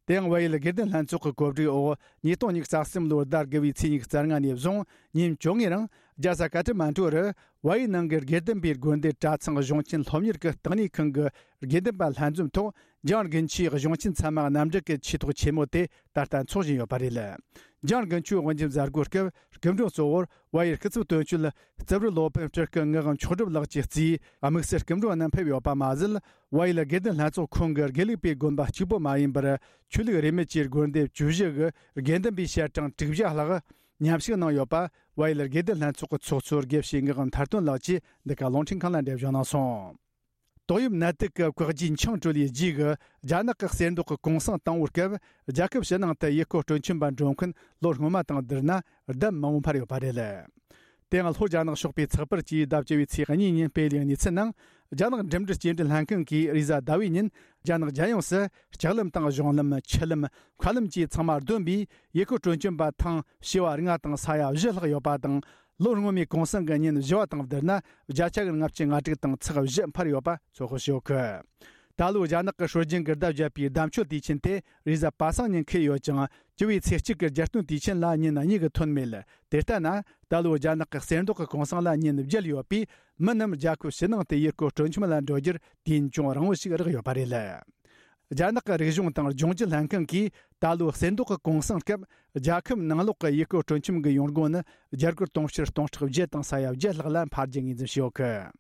དེ་ཡང་བལ་ཡུལ་དགེ་ལྡན་ལྷན་ཚོགས་ཀྱི་གོ་སྒྲིག་འོག་ཉིས་སྟོང་ཉི་ཤུ་རྩ་གསུམ་ལོའི་ཟླ་དགུ་བའི་ཚེས་ཉི་ཤུ་རྩ་ལྔ་ནས་བཟུང་ཉིན་བཅོ་ལྔའི་རིང་རྒྱལ་ས་ཀ་ཐ་མན་གྲུ་རུ་བལ་ཡུལ་ནང་གི་དགེ་ལྡན་པའི་དགོན་སྡེ་གྲྭ་ཚང་གཞུང་ཆེན་སློབ་གཉེར་གྱི་བརྟག་གནས་ཁང་གི་དགེ་ལྡན་པ་ལྷན་འཛོམས་ཐོག་འཇང་དགུན་ཆོས་གཞུང་ཆེན་ཚད་མ་རྣམ་འགྲེལ་གྱི་ཆོས་ཐོག་ཆེན་མོ་དེ་ད་ལྟ་འཚོགས་བཞིན་ཡོད་པ་རེད། འཇང་དགུན་ཆོས་དབུ་འབྱེད་མཛད་སྒོའི་སྐབས་སྐུ་མགྲོན་གཙོ་བོར་བལ་ཡུལ་སྐུ་ཚབ་དོན་གཅོད་རྩིབས་རི་སློབ་དཔོན་སྤྲུལ་སྐུ་ངག་དབང་མཆོག་གྲུབ་ལགས་ཀྱིས་གཙོས་དམིགས་བསལ་སྐུ་མགྲོན་རྣམས་ཕེབས་ཡོད་པ་མ་ཟད། བལ་ཡུལ་དགེ་ལྡན་ལྷན་ཚོགས་ཁོངས་ཀྱི་དགེ་ལུགས་པའི་དགོན་པ་གཅིག་པུ་མ་ཡིན་པར། ཆོས་ལུགས་རིས་མེད་ཀྱི་དགོན་སྡེ་བཅུ་བཞི་གི་དགེ་འདུན་པའི་ཞལ་གྲངས་དྲུག་བརྒྱ་ལྷག་མཉམ་ཞུགས་གནང་ཡོད་པ། བལ་ཡུལ་དགེ་ལྡན་ལྷན་ཚོགས་ཀྱི་ཚོགས་གཙོ་དགེ་བཤེས་ངག་དབང་ཐར་སྟོན་ལགས་ཀྱིས་འདི་ག་རླུང་འཕྲིན་ཁང་ལ་འགྲེལ་བརྗོད་གནང་སོང་། ཏོག་དབྱིབས་ནད་དུག་གི་བཀག་རྒྱའི་འཆིང་གྲོལ་བའི་རྗེས་ཀྱི་རྒྱ་ནག་གི་གསེར་མདོག་གི་གུང་སེང་དང་པོའི་སྐབས། རྒྱལ་ཁབ་ཕྱི་ནང་དུ་ཡུལ་སྐོར་སྤྲོ་འཆམ་པ་འགྲོ་མཁན་ལོ་སྔོན་མ་དང་བསྡུར་ན་ལྡབ་མང་བོ་འཕར་ཡོད་པ་རེད། དེ་ཡང་ལྷོ་རྒྱ་ནག་ཕྱོགས་པའི་ཚགས་པར་གྱིས་ཟླ་བཅུ་བའི་ཚེས་གཉིས་ཉིན་སྤེལ་བའི་གནས་ཚུལ་ནང་། རྒྱ་ནག་འགྲིམ་འགྲུལ་སྐྱེལ་འདྲེན་ལྷན་ཁང་གིས་རེས་གཟའ་ཟླ་བའི་ཉིན་རྒྱ་ནག་རྒྱལ་ཡོངས་སུ་ལྕགས་ལམ་དང་གཞུང་ལམ། ཆུ་ལམ། མཁའ་ལམ་བཅས་ཚང་མ་བསྡོམས་པས་ཡུལ་སྐོར་སྤྲོ་འཆམ་པ་ཐེངས་བྱེ་བ་ལྔ་དང་ས་ཡ་བཞི་ལྷག་ཡོད་པ་དང་། ལོ་སྔོན་མའི་གུང་སེང་གི་ཉིན་བཞི་བ་དང་བསྡུར་ན་བརྒྱ་ཆ་གི་ལྔ་བཅུ་ང་དྲུག་དང་ཚེག་བཞི་འཕར་ཡོད་པ་ཚོད་དཔག་བྱེད་ཀྱི་ཡོད། ད་ལོའི་རྒྱ་ནག་གི་སྲོལ་རྒྱུན་གྱི་ཟླ་བརྒྱད་པའི་ཟླ་མཆོད་དུས་ཆེན་དེ་རེས་གཟའ་པ་སངས་ཉིན་འཁེལ་ཡོད་ཀྱང་། བཅུ་བའི་ཚེས་གཅིག་གི་རྒྱལ་སྟོན་དུས་ཆེན་ལ་ཉིན་གཉིས་ཀྱི་ཐོན་མེད། དེ་ལྟ་ན། ད་ལོའི་རྒྱ་ནག་གི་གསེར་མདོག་གི་གུང་སེང་ལ་ཉིན་བརྒྱད་ཡོད་པས། མི་རྣམས་རྒྱལ་ཁབ་ཕྱི་ནང་དུ་ཡུལ་སྐོར་སྤྲོ་འཆམ་ལ་འགྲོ་རྒྱུར་དུས་ཡུན་ཅུང་རིང་བོ་ཞིག་རག་ཡོད་པ་རེད། རྒྱ་ནག་གི་རིག་གཞུང་དང་ལྗོངས་རྒྱུ་ལྷན་ཁང་གིས་ད་ལོའི་གསེར་མདོག་གི་གུང་སེང་སྐབས། རྒྱལ་ཁབ་ནང་ལོགས་ཀྱི་ཡུལ་སྐོར་སྤྲོ་འཆམ་གྱི་ཡོང་སྒོ་ནི་རྒྱ་སྒོར་དུང་ཕྱུར་སྟོང་ཕྲག་བརྒྱད་དང་ས་ཡ་བརྒྱད་ལྷག་ལ་འཕར་རྒྱུ་ངོས་འཛིན་བྱས་ཡོད་ཀི།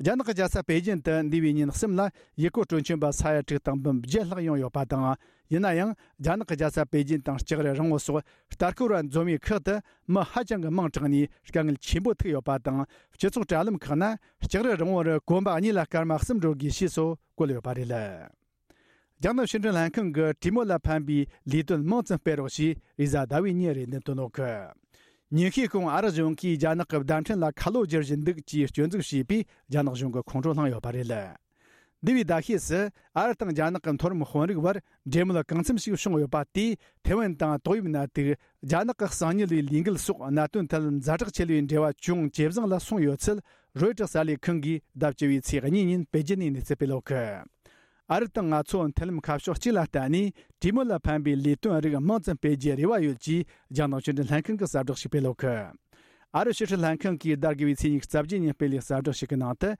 རྒྱ་ནག་གི་རྒྱལ་ས་པེ་ཅིན་དུ་འདས་པའི་ཉིན་གསུམ་ལ་ཡུལ་སྐོར་སྤྲོ་འཆམ་པ་ས་ཡ་དྲུག་དང་འབུམ་བརྒྱད་ལྷག་ཡོང་ཡོད་པ་དང་། ཡིན་ན་ཡང་། རྒྱ་ནག་གི་རྒྱལ་ས་པེ་ཅིན་དང་ལྕགས་རི་རིང་བོ་སོགས་ལྟ་སྐོར་བ་འཛོམས་པའི་ཁག་ཏུ་མི་ཧ་ཅང་གི་མང་དྲགས་ནས་དཀའ་ངལ་ཆེན་པོ་ཐུག་ཡོད་པ་དང་། སྤྱི་ཚོགས་དྲ་ལམ་ཁག་ན་ལྕགས་རི་རིང་བོ་རུ་གོམ་པ་གཉིས་ལ་སྐར་མ་གསུམ་འགྲོ་དགོས་ཞེས་སོགས་བཀོད་ཡོད་པ་རེད། རྒྱ་ནག་ཕྱི་འབྲེལ་ལྷན་ཁང་གིས་གྲོས་མོལ་ལ་ཕན་པའི་ལས་དོན་མང་ཙམ་སྤེལ་རོགས་ཞེས་རེས་གཟའ་ཟླ་བའི་ཉིན་རེ་འདུན་བཏོན་ཡོད་ཀི། ཉིན་ཤས་གོང་ཨ་རི་གཞུང་གིས་རྒྱ་ནག་གི་བརྡ་འཕྲིན་ལ་ཁ་ལོ་བསྒྱུར་བཞིན་འདུག་ཅེས་སྐྱོན་འཛུགས་བྱས་པས་རྒྱ་ནག་གཞུང་གི་ཁོང་ཁྲོ་ལངས་ཡོད་པ་རེད། འདས་པའི་ཟླ་ཤས་སུ་ཨ་རི་དང་རྒྱ་ནག་གི་མཐོ་རིམ་དཔོན་རིགས་བར་འབྲེལ་མོལ་གང་འཚམ་ཞིག་བྱུང་ཡོད་པ་དེས་ཐེ་ཝན་དང་ཏོག་དབྱིབས་ནད་དུག་རྒྱ་ནག་གི་གསང་ཉུལ་བའི་ལས་འགུལ་སོགས་གནད་དོན་ཐད་ཛ་དྲག་ཆེ་བའི་འབྲེལ་བ་ཅུང་ཇེ་བཟང་ལ་སོང་ཡོད་ཚུལ་རོའི་ཊར་གསར་ལས་ཁང་གིས་ཟླ་བཅུ་བའི་ཚེས་གཉིས་ཉིན་པེ་ཅིན་ནས་གནས་ཚུལ་སྤེལ་ཡོད་ཀི། ཨ་རི་དང་ང་ཚོ་མཐུན་ལམ་ཁ་ཕྱོགས་གཅིག་ལ་བརྟེན་ནས་གྲོས་མོལ་ལ་ཕན་པའི་ལས་དོན་རིགས་མང་ཙམ་སྤེལ་རྒྱུའི་རེ་བ་ཡོད་ཅེས་རྒྱ་ནག་ཕྱི་འབྲེལ་ལྷན་ཁང་གིས་གསལ་བསྒྲགས་ཤིག་སྤེལ་ཡོད་ཀི། ཨ་རི་ཕྱི་སྲིད་ལྷན་ཁང་གིས་ཟླ་དགུ་བའི་ཚེས་ཉི་ཤུ་རྩ་བརྒྱད་ཉིན་སྤེལ་བའི་གསལ་བསྒྲགས་ཤིག་གི་ནང་དུ།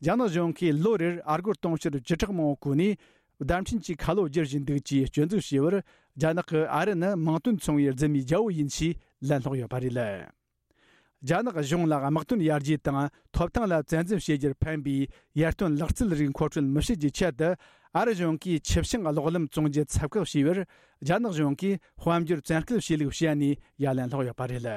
རྒྱ་ནག་གཞུང་གིས་ལོ་རེར་ཨ་སྒོར་དུང་ཕྱུར་བཅུ་ཕྲག་མང་བོ་བཀོལ་ནས། བརྡ་འཕྲིན་གྱི་ཁ་ལོ་བསྒྱུར་བཞིན་འདུག་ཅེས་སྐྱོན་འཛུགས་བྱས་པར། རྒྱ་ནག་གིས་ཨ་རི་ནི་མིང་དོན་མཚུངས་པའི་རྫུན་མའི་རྒྱལ་པོ་ཡིན་ཞེས་ལན་སློག་ཡོད་པ་རེད། རྒྱ་ནག་གཞུང་ལ་དམག་དོན་ཡར་རྒྱས་དང་ཐོབ་ཐང་ལ་བཙན་འཛུལ་བྱེད་རྒྱུར་ཕན་པའི་ཡར་ཐོན་ལག་རྩལ་རིགས་མཁོ་སྤྲོད་མི་བྱེད་རྒྱུའི་ཆེད་དུ། ཨ་རི་གཞུང་གིས་ཆུ་བྱང་གློག་ལམ་བཙོང་རྒྱུ་ཚབ་བཀག་བྱས་པར། རྒྱ་ནག་གཞུང་གིས་དཔལ་འབྱོར་བཙན་སྐུལ་བྱས་ལུགས་བཤད་ནས་ཡ་ལན་སློག་ཡོད་པ་རེད།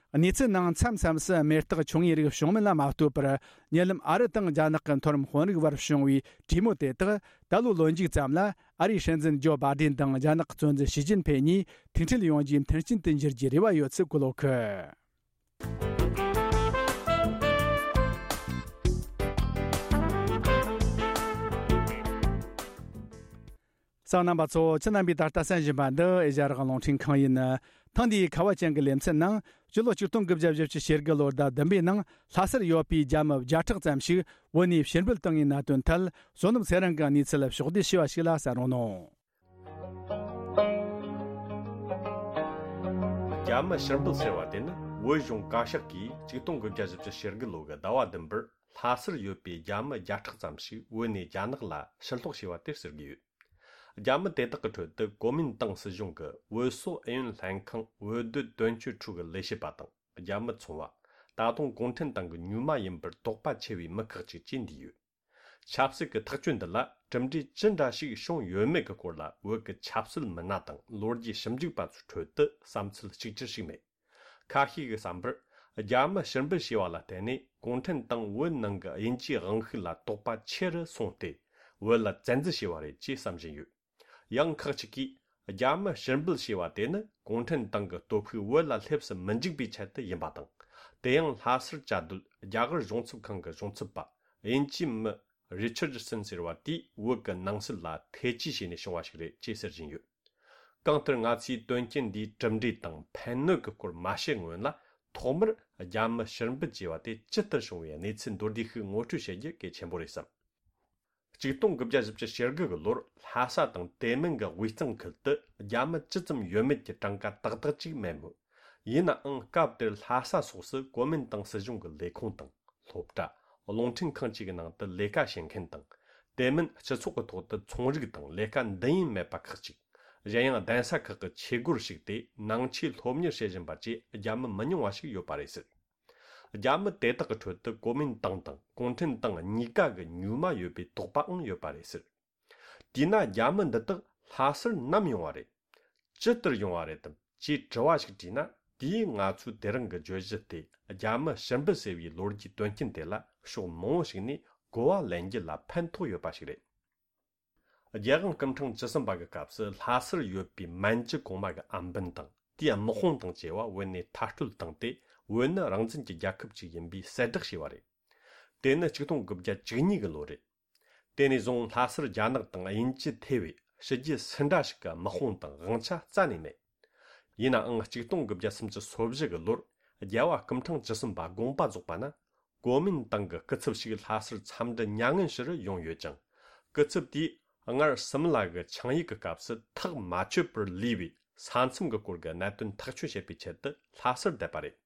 གནས་ཚུལ་ནང་མཚམས་མཚམས་སུ་མེ་སྟག་ཆུང་ངུའི་རིགས་བྱུང་མིན་ལ་མ་ལྟོས་པར། ཉེ་ལམ་ཨ་རི་དང་རྒྱ་ནག་གི་མཐོ་རིམ་དཔོན་རིགས་བར་བྱུང་བའི་གྲོས་མོལ་དེ་དག་ད་ལོའི་ལོ་མཇུག་ཙམ་ལ། ཨ་རིའི་སྲིད་འཛིན་ཇོ་བྷ་དེན་དང་རྒྱ་ནག་གི་གཙོ་འཛིན་ཞི་ཅིན་ཕེ་གཉིས་ཐུག་འཕྲད་ཡོང་རྒྱུའི་མཐུན་རྐྱེན་དུ་འགྱུར་རྒྱུའི་རེ་བ་ཡོད་ཚུལ་བཀོད་ཡོད་ཀི། གསན་མཁན་རྣམ་པ་ཚོ། ཁྱེད་རྣམ་པས་ད་ལྟ་གསན་བཞིན་པ་འདི་ཨེ་ཤ་ཡ་རང་དབང་རླུང་འཕྲིན་ཁང་ཡིན། ཐེངས་འདིའི་ཁ་བ་ཅན་གྱི་ལེ་ཚན་ནང་། སྤྱི་ལོ་ཆིག་སྟོང་དགུ་བརྒྱ་བཞི་བཅུ་ཞེ་དགུ་ལོའི་ཟླ་བདུན་པའི་ནང་ལྷ་སར་ཡོད་པའི་རྒྱ་མི་བརྒྱ་ཕྲག་ཙམ་ཞིག་བོད་ནས་ཕྱིར་འབུད་བཏང་བའི་གནད་དོན་ཐད། བསོད་ནམས་ཚེ་རིང་གིས་གནས་ཚུལ་ཕྱོགས་བསྡུས་ཞུས་པ་ཞིག་ལ་གསན་རོགས་གནང་། རྒྱ་མི་ཕྱིར་འབུད་ཟེར་བ་དེ་ནི་བོད་གཞུང་བཀའ་ཤག་གིས་ཆིག་སྟོང་དགུ་བརྒྱ་བཞི་བཅུ་ཞེ་དགུ་ལོ་གི་ཟླ་བ་བདུན་པར་ལྷ་སར་ཡོད་པའི་རྒྱ་མི་བརྒྱ་ཕྲག་ཙམ་ཞིག་བོད་ནས་རྒྱ་ནག་ལ་ཕྱིར་སློག་བྱས་པ་དེར་ཟེར་གྱི་ཡོད། རྒྱ་མི་དེ་དག་གི་ཁྲོད་དུ་གོ་མིན་ཏང་སྲིད་གཞུང་གི་བོད་སོག་ཨུ་ཡོན་ལྷན་ཁང་བོད་སྡོད་དོན་གཅོད་ཁྲུའུ་གི་ལས་བྱེད་པ་དང་རྒྱ་མི་ཚོང་བ། ད་དུང་གུང་ཁྲན་ཏང་གི་མྱུལ་མ་ཡིན་པར་དོགས་པ་ཆེ་བའི་མི་ཁག་ཅིག་བཅས་འདུས་ཡོད། ཆབ་སྲིད་ཀྱི་ཐག་གཅོད་འདི་ལ་གྲུབ་འབྲས་ཅི་འདྲ་ཞིག་བྱུང་ཡོད་མེད་ཀྱི་སྐོར་ལ་བོད་ཀྱི་ཆབ་སྲིད་མི་སྣ་དང་ལོ་རྒྱུས་ཞིབ་འཇུག་པ་ཚོའི་ཁྲོད་དུ་བསམ་ཚུལ་གཅིག་གྱུར་ཞིག་མེད། ཁ་ཤས་ཀྱི་བསམ་པར། རྒྱ་མི་ཕྱིར་འབུད་བྱས་པ་ལ་བརྟེན་ནས་གུང་ཁྲན་ཏང་བོད་ནང་གི་དབྱིན་ཇིའི་དབང་ཤུགས་ལ་དོགས་པ་ཆེ་རུ་སོང་སྟེ། བོད་ལ་བཙན་འཛུལ་བྱས་པ་རེད་ཅེས་བསམ་བཞིན་ཡོད། ཡང་ཁག་ཅིག་གིས། རྒྱ་མི་ཕྱིར་འབུད་བྱས་པ་དེ་ནི་གུང་ཁྲན་ཏང་གི་སྟོབས་ཤུགས་བོད་ལ་སླེབས་སུ་མི་འཇུག་པའི་ཆེད་དུ་ཡིན་པ་དང་། དེ་ཡང་ལྷ་སར་བཅའ་སྡོད་རྒྱ་གར་གཞུང་ཚབ་ཁང་གི་གཞུང་ཚབ་པ་དབྱིན་ཇིའི་མི་རི་ཆར་ཌི་སན་ཟེར་བ་དེས་བོད་ཀྱི་ནང་སྲིད་ལ་ཐེ་ཇུས་བྱས་ནས་བྱུང་བ་ཞིག་རེད་ཅེས་ཟེར་བཞིན་ཡོད། གང་ལྟར་ང་ཚོས་དོན་རྐྱེན་འདིའི་གྲུབ་འབྲས་དང་ཕན་གནོད་ཀྱི་སྐོར་མ་བཤད་སྔོན་ལ། ཐོག་མར་རྒྱ་མི་ཕྱིར་འབུད་བྱས་པ་དེ་ཇི་ལྟར་བྱུང་བའི་གནས་ཚུལ་མདོར་བསྡུས་ཤིག་ངོ་སྤྲོད་བྱེད་རྒྱུ་གལ་ཆེན་པོ་རེད་བསམ། ཆིག་སྟོང་དགུ་བརྒྱ་བཞི་བཅུ་ཞེ་དགུ་གི་ལོར་ལྷ་ས་དང་དེ་མིན་གྱི་དབུས་གཙང་ཁུལ་དུ་རྒྱ་མི་ཇི་ཙམ་ཡོད་མེད་ཀྱི་གྲངས་ཀ་ཏག་ཏག་ཅིག་མེད་མོད། ཡིན་ནའང་སྐབས་དེར་ལྷ་ས་སོགས་སུ་གོ་མིན་ཏང་སྲིད་གཞུང་གི་ལས་ཁུངས་དང་སློབ་གྲྭ། རླུང་འཕྲིན་ཁང་བཅས་ཀྱི་ནང་དུ་ལས་ཀ་བྱེད་མཁན་དང་། དེ་མིན་སྤྱི་ཚོགས་ཀྱི་ཐོག་ཏུ་ཚོང་རིགས་དང་ལས་ཀ་འདི་ཡིན་མེད་པ་ཁག་ཅིག་གཞན་ཡང་གདན་ས་ཁག་གི་ཆས་སྒོར་ཞུགས་ཏེ་ནང་ཆོས་སློབ་གཉེར་བྱེད་བཞིན་པ་བཅས་རྒྱ་མི་མི་ཉུང་བ་ཞིག་ཡོད་པ་རེད་ཟེར། རྒྱ་མི་དེ་དག་གི་ཁྲོད་དུ་གོ་མིན་ཏང་དང་གུང་ཁྲན་ཏང་གཉིས་ཀ་གི་མྱུལ་མ་ཡོད་པའི་དོགས་པའང་ཡོད་པ་རེད་ཟེར། དེས་ན་རྒྱ་མི་འདི་དག་ལྷ་སར་ནམ་ཡོང་བ་རེད། ཇི་ལྟར་ཡོང་བ་རེད་དམ་ཅེས་དྲི་བ་ཞིག་དྲིས་ན། དེས་ང་ཚོའི་དེ་རིང་གི་བརྗོད་གཞི་སྟེ་རྒྱ་མི་ཕྱིར་འབུད་ཟེར་བའི་ལོ་རྒྱུས་དོན་རྐྱེན་དེ་ལ་ཕྱོགས་མང་བོ་ཞིག་ནས་གོ་བ་ལེན་རྒྱུ་ལ་ཕན་ཐོགས་ཡོད་པ་ཞིག་རེད། རྒྱལ་དབང་སྐུ་ཕྲེང་བཅུ་གསུམ་པ་གི་སྐབས་སུ་ལྷ་སར་ཡོད་པའི་མན་ཇུ་གོང་མ་གི་ཨམ་བན་དང་དེའི་དམག་དཔུང་དང་བཅས་པ་བོད་ནས་མཐར་སྐྲོད་བཏང་སྟེ། བོད་ནི་རང་བཙན་གྱི་རྒྱལ་ཁབ་ཅིག་ཡིན་པའི་གསལ་བསྒྲགས་བྱས་པ་རེད། དེ་ནི་ཆིག་སྟོང་དགུ་བརྒྱ་བཅུ་གཉིས་གི་ལོ་རེད། དེ་ནས་བཟུང་ལྷ་སར་རྒྱ་ནག་དང་དབྱིན་ཇི་ཐེ་བའི་ཕྱི་རྒྱལ་སུ་འདྲ་ཞིག་གི་དམག་དཔུང་དང་དབང་ཆ་རྩ་ནས་མེད། ཡིན་ནའང་ཆིག་སྟོང་དགུ་བརྒྱ་སུམ་ཅུ་སོ་བཞི་གི་ལོར་རྒྱལ་བ་སྐུ་ཕྲེང་བཅུ་གསུམ་པ་དགོངས་པ་རྫོགས་པ་ན། གོ་མིན་ཏང་གི་སྐུ་ཚབ་ཞིག་ལྷ་སར་འཚམས་འདྲི་མྱ་ངན་ཞུ་རུ་ཡོང་ཡོད་ཅིང་། སྐུ་ཚབ་དེས་སྔར་སིམ་ལ་གི་ཆིངས་ཡིག་གི་སྐབས་སུ་ཐག་མ་ཆོད་པར་ལུས་པའི་ས་མཚམས་ཀྱི་སྐོར་གྱི་གནད་དོན་ཐག་གཅོད་བྱེད་པའི་ཆེད་དུ་ལྷ་སར་བསྡད་པ་རེད།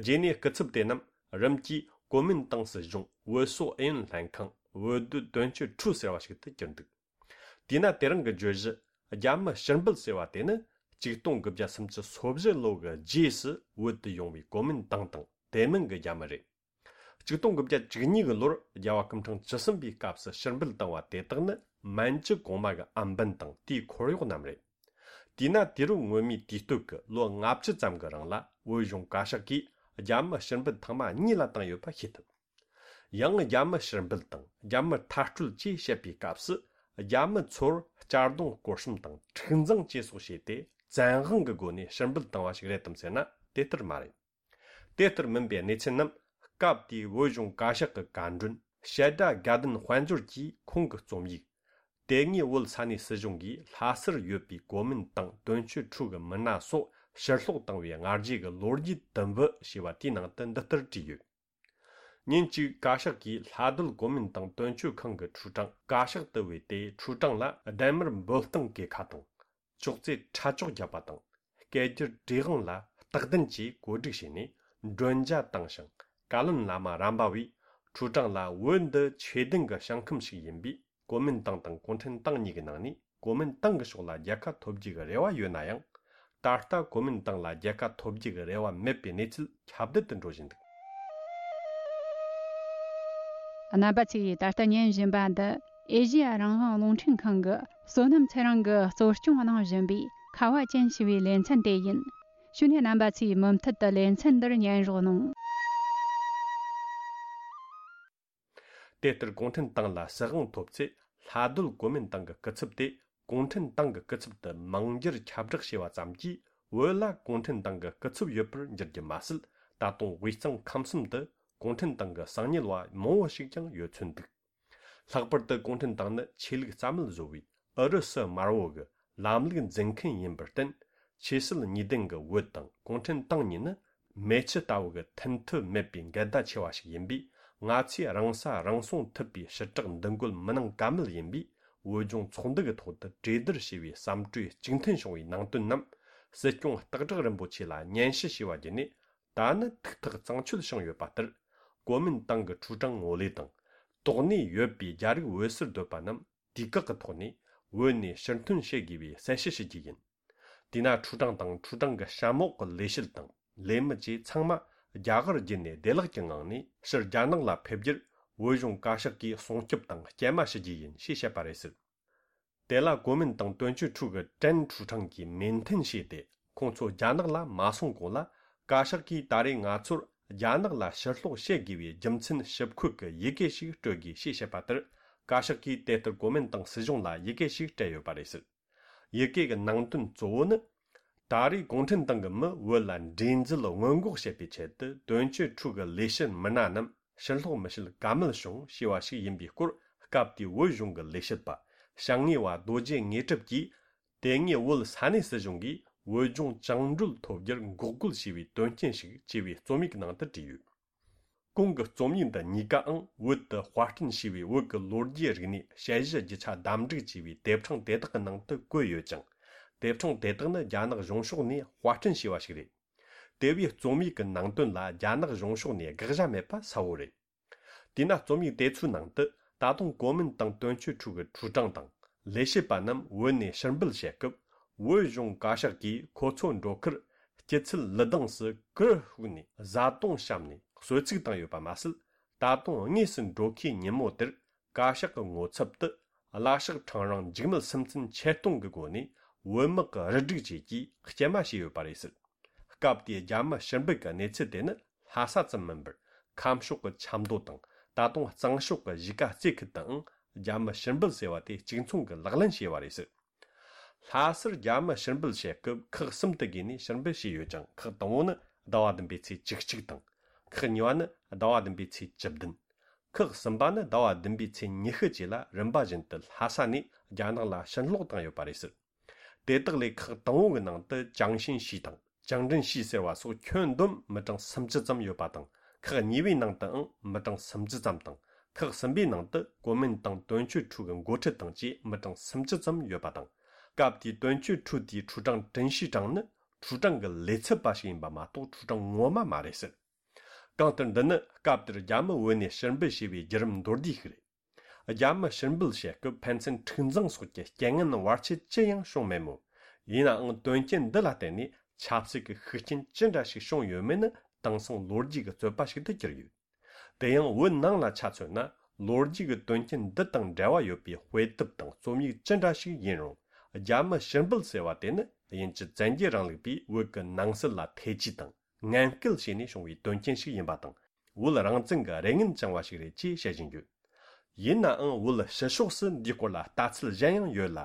རྗེས་ནས་སྐུ་ཚབ་དེ་རྣམས་རིམ་གྱིས་གོ་མིན་ཏང་སྲིད་གཞུང་བོད་སོག་ཨུ་ཡོན་ལྷན་ཁང་བོད་སྡོད་དོན་གཅོད་ཁྲུའུ་ཟེར་བ་ཞིག་ཏུ་གྱུར་འདུག་དེས་ན་དེ་རིང་གི་བརྗོད་གཞི་རྒྱ་མི་ཕྱིར་འབུད་ཟེར་བ་དེ་ནི་ཆིག་སྟོང་དགུ་བརྒྱ་སུམ་ཅུ་སོ་བཞི་ལོ་གི་རྗེས་སུ་བོད་དུ་ཡོང་བའི་གོ་མིན་ཏང་དང་དེ་མིན་གྱི་རྒྱ་མི་རེད། ཆིག་སྟོང་དགུ་བརྒྱ་བཅུ་གཉིས་གི་ལོར་རྒྱལ་བ་སྐུ་ཕྲེང་བཅུ་གསུམ་པའི་སྐབས་སུ་ཕྱིར་འབུད་བཏང་བ་དེ་དག་ནི་མན་ཇུ་གོང་མ་གི་ཨམ་བན་དང་དེའི་འཁོར་གཡོག་རྣམས་རེད། དེས་ན་དུས་རབས་སྔོན་མའི་དུས་སྟོད་ཀྱི་ལོ་ལྔ་བཅུ་ཙམ་གྱི་རིང་ལ་བོད་གཞུང་བཀའ་ཤག་གིས་རྒྱ་མི་ཕྱིར་འབུད་ཐེངས་མ་གཉིས་ལ་བཏང་ཡོད་པ་ཤེས་ཐུབ། ཡང་རྒྱ་མི་ཕྱིར་འབུད་དང་རྒྱ་མི་མཐར་སྐྲོད་ཅེས་བཤད་པའི་སྐབས་སུ་རྒྱ་མི་ཚོར་གཅར་རྡུང་སྐོར་གཤོམ་དང་འཁྲུག་འཛིང་བཅས་སོགས་བྱས་ཏེ་བཙན་དབང་གི་སྒོ་ནས་ཕྱིར་འབུད་བཏང་བ་ཞིག་རེད་དམ་ཟེར་ན་དེ་ལྟར་མ་རེད། དེ་ལྟར་མིན་པའི་གནས་ཚུལ་རྣམས་སྐབས་དེའི་བོད་གཞུང་བཀའ་ཤག་གི་བཀའ་མགྲོན་བཤད་སྒྲ་དགའ་ལྡན་དཔལ་འབྱོར་གྱིས་ཁོང་གི་རྩོམ་ཡིག་དེ་སྔའི་བོད་ས་གནས་སྲིད་གཞུང་གིས་ལྷ་སར་ཡོད་པའི་གོ་མིན་ཏང་དོན་གཅོད་ཁྲུའུ་གི་མི་སྣ་སོགས་ཕྱིར་སློག་བཏང་བའི་སྔ་རྗེས་ཀྱི་ལོ་རྒྱུས་དུམ་བུ་ཞེས་པ་དེའི་ནང་དུ་འདི་ལྟར་བྲིས་ཡོད། ཉིན་གཅིག་བཀའ་ཤག་གིས་ལྷ་སྡོད་གོ་མིན་ཏང་དོན་གཅོད་ཁང་གི་ཁྲུའུ་ཀྲང་བཀའ་ཤག་ཏུ་བོས་ཏེ། ཁྲུའུ་ཀྲང་ལ་ལྡན་མར་འབོད་སྟངས་གི་ཁ་དང་། ཅོག་ཙེ་ཁྲ་ཅོག་བརྒྱབ་པ་དང་། སྐད་སྒྱུར་བྲིས་དབང་ལ་རྟག་བདུན་གྱིས་གོ་སྒྲིག་བྱས་ནས་མགྲོན་ཇ་བཏང་ཞིང་། བཀའ་བློན་བླ་མ་རམ་པ་བས་ཁྲུའུ་ཀྲང་ལ་བོད་འདི་ཆོས་ལྡན་གྱི་ཞིང་ཁམས་ཤིག་ཡིན་པས། གོ་མིན་ཏང་དང་གུང་ཁྲན་ཏང་གཉིས་ཀྱི་ནང་ནས་གོ་མིན་ཏང་གི་ཕྱོགས་ལ་རྒྱལ་ཁ་ཐོབ་རྒྱུ་གི་རེ་བ་ཡོད་ན་ཡང་། ད་ལྟ་གོ་མིན་ཏང་ལ་རྒྱལ་ཁ་ཐོབ་རྒྱུ་གི་རེ་བ་མེད་པའི་གནས་ཚུལ་ཁྱབ་གདལ་དུ་འགྲོ་བཞིན་འདུག། རྣམ་པ་ཚོས་ད་ལྟ་ཉན་བཞིན་པ་འདི་ཨེ་ཤེ་ཡ་རང་དབང་རླུང་འཕྲིན་ཁང་གི་བསོད་ནམས་ཚེ་རིང་གིས་གཙོ་སྐྱོང་གནང་བཞིན་པའི་ཁ་བ་ཅན་ཞེས་པའི་ལེ་ཚན་དེ་ཡིན། ཞུ་ནས་རྣམ་པ་ཚོས་མུ་མཐུད་དུ་ལེ་ཚན་འདིར་ཉན་རོགས་གནང་། དེ་ལྟར་གུང་ཁྲན་ཏང་ལ་སྲིད་དབང་ཐོབ་ཚེ་ལྷ་སྡོད་གོ་མིན་ཏང་གི་སྐུ་ཚབ་དེ་གུང་ཁྲན་ཏང་གི་སྐུ་ཚབ་ཏུ་མིང་བསྒྱུར་ཁྱབ་བསྒྲགས་བྱས་པ་ཙམ་གྱིས་བོད་ལ་གུང་ཁྲན་ཏང་གི་སྐུ་ཚབ་ཡོད་པར་འགྱུར་རྒྱུ་མ་ཟད། ད་དུང་དབུས་གཙང་ཁམས་གསུམ་དུ་གུང་ཁྲན་ཏང་གི་གསང་ཉུལ་བ་མང་བོ་ཞིག་ཀྱང་ཡོད་ཚོད་འདུག། ལྷག་པར་དུ་གུང་ཁྲན་ཏང་ནི་ཆོས་ལུགས་རྩ་མེད་བཟོ་བའི་ཨུ་རུ་སུ་དམར་བོ་གི་ལམ་ལུགས་འཛིན་མཁན་ཡིན་པར་བརྟེན། ཆོས་སྲིད་གཉིས་ལྡན་གྱི་བོད་དང་གུང་ཁྲན་ཏང་གཉིས་ནི་མེ་ཆུ་ལྟ་བུ་གི་མཐུན་ཐབས་མེད་པའི་འགལ་ཟླ་ཆེ་བ་ཞིག་ཡིན་པས། ང་ཚོས་རང་ས་རང་སྲུང་ཐུབ་པའི་ཞི་དྲག་འདུ་འགོད་མི་གནང་ཀ་མེད་ཡིན་པས། བོད་ལྗོངས་ཚོགས་འདུ་གི་ཐོག་ཏུ་གྲོས་བསྡུར་བྱས་པའི་བསམ་གྲོས་གཅིག་མཐུན་བྱུང་བའི་ནང་དོན་རྣམས་སྲིད་སྐྱོང་སྟག་བྲག་རིན་པོ་ཆེ་ལ་སྙན་ཞུ་ཞུས་པ་བརྒྱུད་ནས། ད་ནི་ཐུགས་ཐག་གཙང་ཆོད་བྱུང་ཡོད་པ་ལྟར། གོ་མིན་ཏང་གི་ཁྲུའུ་ཀྲང་ངོ་ལས་དང་། དོགས་གནས་ཡོད་པའི་རྒྱ་རིགས་བོད་སར་སྡོད་པ་རྣམས་དུས་བཀག་གི་ཐོག་ནས་བོད་ནས་ཕྱིར་ཐོན་བྱེད་དགོས་པའི་གསལ་བཤད་ཞུ་རྒྱུ་ཡིན། དེས་ན་ཁྲུའུ་ཀྲང་དང་ཁྲུའུ་ཀྲང་གི་ཞབས་མོག་གི་ལས་བྱེད་དང་ལས་མི་བཅས་ཚང་མ་རྒྱ་གར་བརྒྱུད་ནས་བདེ་བླག་གི་ངང་ནས་ཕྱིར་རྒྱ་ནག་ལ་ཕེབས་རྒྱུར་བོད་གཞུང་བཀའ་ཤག་གིས་སྲུང་སྐྱོབ་དང་སྐྱེལ་མ་ཞུ་རྒྱུ་ཡིན་ཞེས་བཤད་པ་རེད་ཟེར། དེ་ལ་གོ་མིན་ཏང་དོན་གཅོད་ཁྲུའུ་གི་ཀྲན་ཁྲུའུ་ཀྲང་གིས་མོས་མཐུན་བྱས་ཏེ། ཁོང་ཚོ་རྒྱ་ནག་ལ་མ་སོང་གོང་ལ་ བཀའ་ཤག་གིས་ད་རེས་ང་ཚོར་རྒྱ་ནག་ལ་ཕྱིར་སློག་བྱེད་དགོས་པའི་རྒྱུ་མཚན་ཞིབ་འཁོད་ཀྱི་ཡི་གེ་ཞིག་སྤྲོད་དགོས་ཞེས་བཤད་པ་ལྟར། བཀའ་ཤག་གིས་དེ་ལྟར་གོ་མིན་ཏང་སྲིད་གཞུང་ལ་ཡི་གེ་ཞིག་སྤྲད་ཡོད་པ་རེད་ཟེར། ཡི་གེ་གི་ནང་དོན་གཙོ་བོ་ནི། ད་རེས་གུང་ཁྲན་ཏང་གི་མི་བོད་ལ་འདྲེས་འཛུལ་སྔོན་འགོག་བྱེད་པའི་ཆེད་དུ་དོན་གཅོད་ཁྲུའུ་གི་ལས་བྱེད་མི་སྣ་རྣམས་ཕྱིར་སློག་མི་བྱེད་ཀ་མེད་བྱུང་ཞེས་པ་ཞིག་ཡིན་པའི་སྐོར། སྐབས་དེའི་བོད་གཞུང་གི་ལས་བྱེད་པ་བྱང་ངེས་པ་རྡོ་རྗེ་དངོས་གྲུབ་ཀྱིས། དེ་སྔའི་བོད་ས་གནས་སྲིད་གཞུང་གིས་བོད་ལྗོངས་བཅིངས་འགྲོལ་ཐོབ་རྒྱུར་འགོག་རྒོལ་བྱས་པའི་དོན་རྐྱེན་ཞིག་ཅེས་པའི་རྩོམ་ཡིག་ནང་དུ་བྲིས་ཡོད། གོང་གི་རྩོམ་ཡིག་འདི་གཉིས་ཀའང་བོད་དུ་དཔར་སྐྲུན་བྱས་པའི་བོད་ཀྱི་ལོ་རྒྱུས་རིག་གནས་དཔྱད་གཞི་རྒྱུ་ཆ་བདམས་བསྒྲིགས་བྱས་པའི་དེབ་ཕྲེང་དེ་དག་གི་ནང་དུ་བཀོད་ཡོད་ཅིང་། དེབ་ཕྲེང་དེ་དག་ནི་རྒྱ་ནག་གཞུང་ཕྱོགས་ནས་དཔར་སྐྲུན་བྱས་པ་ཞིག་རེད། དེ་བས་རྩོམ་ཡིག་གི་ནང་དོན་ལ་རྒྱ་ནག་གཞུང་ཕྱོགས་ནས་དགག་བྱ་མེད་པ་གསལ་བོ་རེད། དེས་ན་རྩོམ་ཡིག་དེ་ཚོའི་ནང་དུ་ད་དུང་གོ་མིན་ཏང་དོན་གཅོད་ཁྲུའུ་གི་ཁྲུའུ་ཀྲང་དང་ལས་བྱེད་པ་རྣམས་བོད་ནས་ཕྱིར་འབུད་བྱེད་སྐབས། བོད་གཞུང་བཀའ་ཤག་གིས་ཁོ་ཚོ་འགྲོ་ཁར་སྐྱིད་ཚལ་ལི་སྡང་སུ་གུར་ཕུབ་ནས་བཟའ་བཏུང་བཤམས་ནས་གསོལ་ཚིགས་བཏང་ཡོད་པ་མ་ཟད། ད་དུང་དངོས་སུ་འགྲོ་ཁའི་ཉིན་མོ་དེར་བཀའ་ཤག་གི་ངོ་ཚབ་ཏུ་གླ་ཞགས་ཁྲང་རིང་འཇིགས་མེད་སུམ་རྩེན་ཆེད་གཏོང་གི་སྒོ་ནས་བོད་དམག་གི་རུ་སྒྲིག་བཅས་ཀྱིས་སྐྱེལ་མ་བྱས་ཡོད་པ་རེད་ཟེར། སྐབས་དེའི་རྒྱ་མི་ཕྱིར་འབུད་ཀྱི་གནས་ཚུལ་དེ་ནི་ལྷ་ས་ཙམ་མིན་པར། ཁམས་ཕྱོགས་ཀྱི་ཆབ་མདོ་དང་ད་དུང་གཙང་ཕྱོགས་ཀྱི་གཞིས་ཀ་རྩེ་ཁུལ་དུའང་རྒྱ་མི་ཕྱིར་འབུད་ཟེར་བ་དེ་གཅིག་མཚུངས་ཀྱི་ལག་ལེན་བྱས་པ་རེད་ཟེར། ལྷ་སར་རྒྱ་མི་ཕྱིར་འབུད་བྱེད་སྐབས་ཁག་གསུམ་དུ་བགོས་ནས་ཕྱིར་འབུད་བྱས་ཡོད་ཅིང་། ཁག་དང་པོ་ནི་ཟླ་བ་བདུན་པའི་ཚེས་བཅུ་གཅིག་དང་། ཁག་གཉིས་པ་ནི་ཟླ་བ་བདུན་པའི་ཚེས་བཅུ་བདུན། ཁག་གསུམ་པ་ནི་ཟླ་བ་བདུན་པའི་ཚེས་ཉི་ཤུ་བཅས་ལ་རིམ་པ་བཞིན་དུ་ལྷ་ས་ནས་རྒྱ་ནག་ལ་ཕྱིར་སློག་བཏང་ཡོད་པ་རེད་ཟེར། དེ་དག་ལས་ཁག་དང་པོ་གི་ནང་དུ་ཅང་ཤིན་ཤི་དང་ཅང་ཀྲིན་ཤི་ཟེར་བ་སོགས་ཁྱོན་བསྡོམས་མི་གྲངས་སུམ་ཅུ་ཙམ་ཡོད་པ་དང་། ཁག་གཉིས་པའི་ནང་དུའང་མི་གྲངས་སུམ་ཅུ་ཙམ་དང་། ཁག་གསུམ་པའི་ནང་དུ་གོ་མིན་ཏང་དོན་གཅོད་ཁྲུའུ་གི་འགོ་ཁྲིད་དང་བཅས་མི་གྲངས་སུམ་ཅུ་ཙམ་ཡོད་པ་དང་། སྐབས་དེའི་དོན་གཅོད་ཁྲུའུ་དེའི་ཁྲུའུ་ཀྲང་ཀྲིན་ཤི་ཀྲང་ནི་ཁྲུའུ་ཀྲང་གི་ལས་ཚབ་པ་ཞིག་ཡིན་པ་མ་གཏོགས་ཁྲུའུ་ཀྲང་ངོ་མ་མ་རེད་ཟེར། གང་ལྟར་འདི་ནི་སྐབས་དེར་རྒྱ་མི་བོད་ནས་ཕྱིར་འབུད་བྱས་པའི་བརྒྱུད་རིམ་མདོར་བསྡུས་ཤིག་རེད། རྒྱ་མི་ཕྱིར་འབུད་བྱེད་སྐབས་ཕན་ཚུན་འཁྲུག་འཛིང་སོགས་ཀྱི་རྐྱེན་ངན་བར་ཆད་ཅི་ཡང་བྱུང་མེད་མོད། ཡིན་ནའང་དོན་རྐྱེན་འདི་ལ་བརྟེན་ནས་ཆབ་སྲིད་ཀྱི་ཤུགས་རྐྱེན་ཅི་འདྲ་ཞིག་བྱུང་ཡོད་མེད་ནི་དེང་སང་ལོ་རྒྱུས་ཀྱི་རྩོད་པ་ཞིག་ཏུ་གྱུར་ཡོད། དེ་ཡང་བོད་ནང་ལ་ཆ་མཚོན་ན། ལོ་རྒྱུས་ཀྱི་དོན་རྐྱེན་འདི་དང་འབྲེལ་བ་ཡོད་པའི་དཔེ་དེབ་དང་རྩོམ་ཡིག་ཅི་འདྲ་ཞིག་ཡིན་རུང་། རྒྱ་མི་ཕྱིར་འབུད་ཟེར་བ་དེ་ནི་དབྱིན་ཇི་བཙན་རྒྱལ་རིང་ལུགས་པས་བོད་ཀྱི་ནང་སྲིད་ལ་ཐེ་ཇུས་དང་ངན་སྐུལ་བྱས་ནས་བྱུང་བའི་དོན་རྐྱེན་ཞིག་ཡིན་པ་དང་། བོད་རང་བཙན་གྱི་རེ་ངན་བཅངས་པ་ཞིག་རེད་ཅེས་བཤད་བཞིན་ཡོད། ཡིན་ནའང་བོད་ཕྱི་ཕྱོགས་སུ་འདིའི་སྐོར་ལ་ལྟ་ཚུལ་གཞན་ཡང་ཡོད་ལ།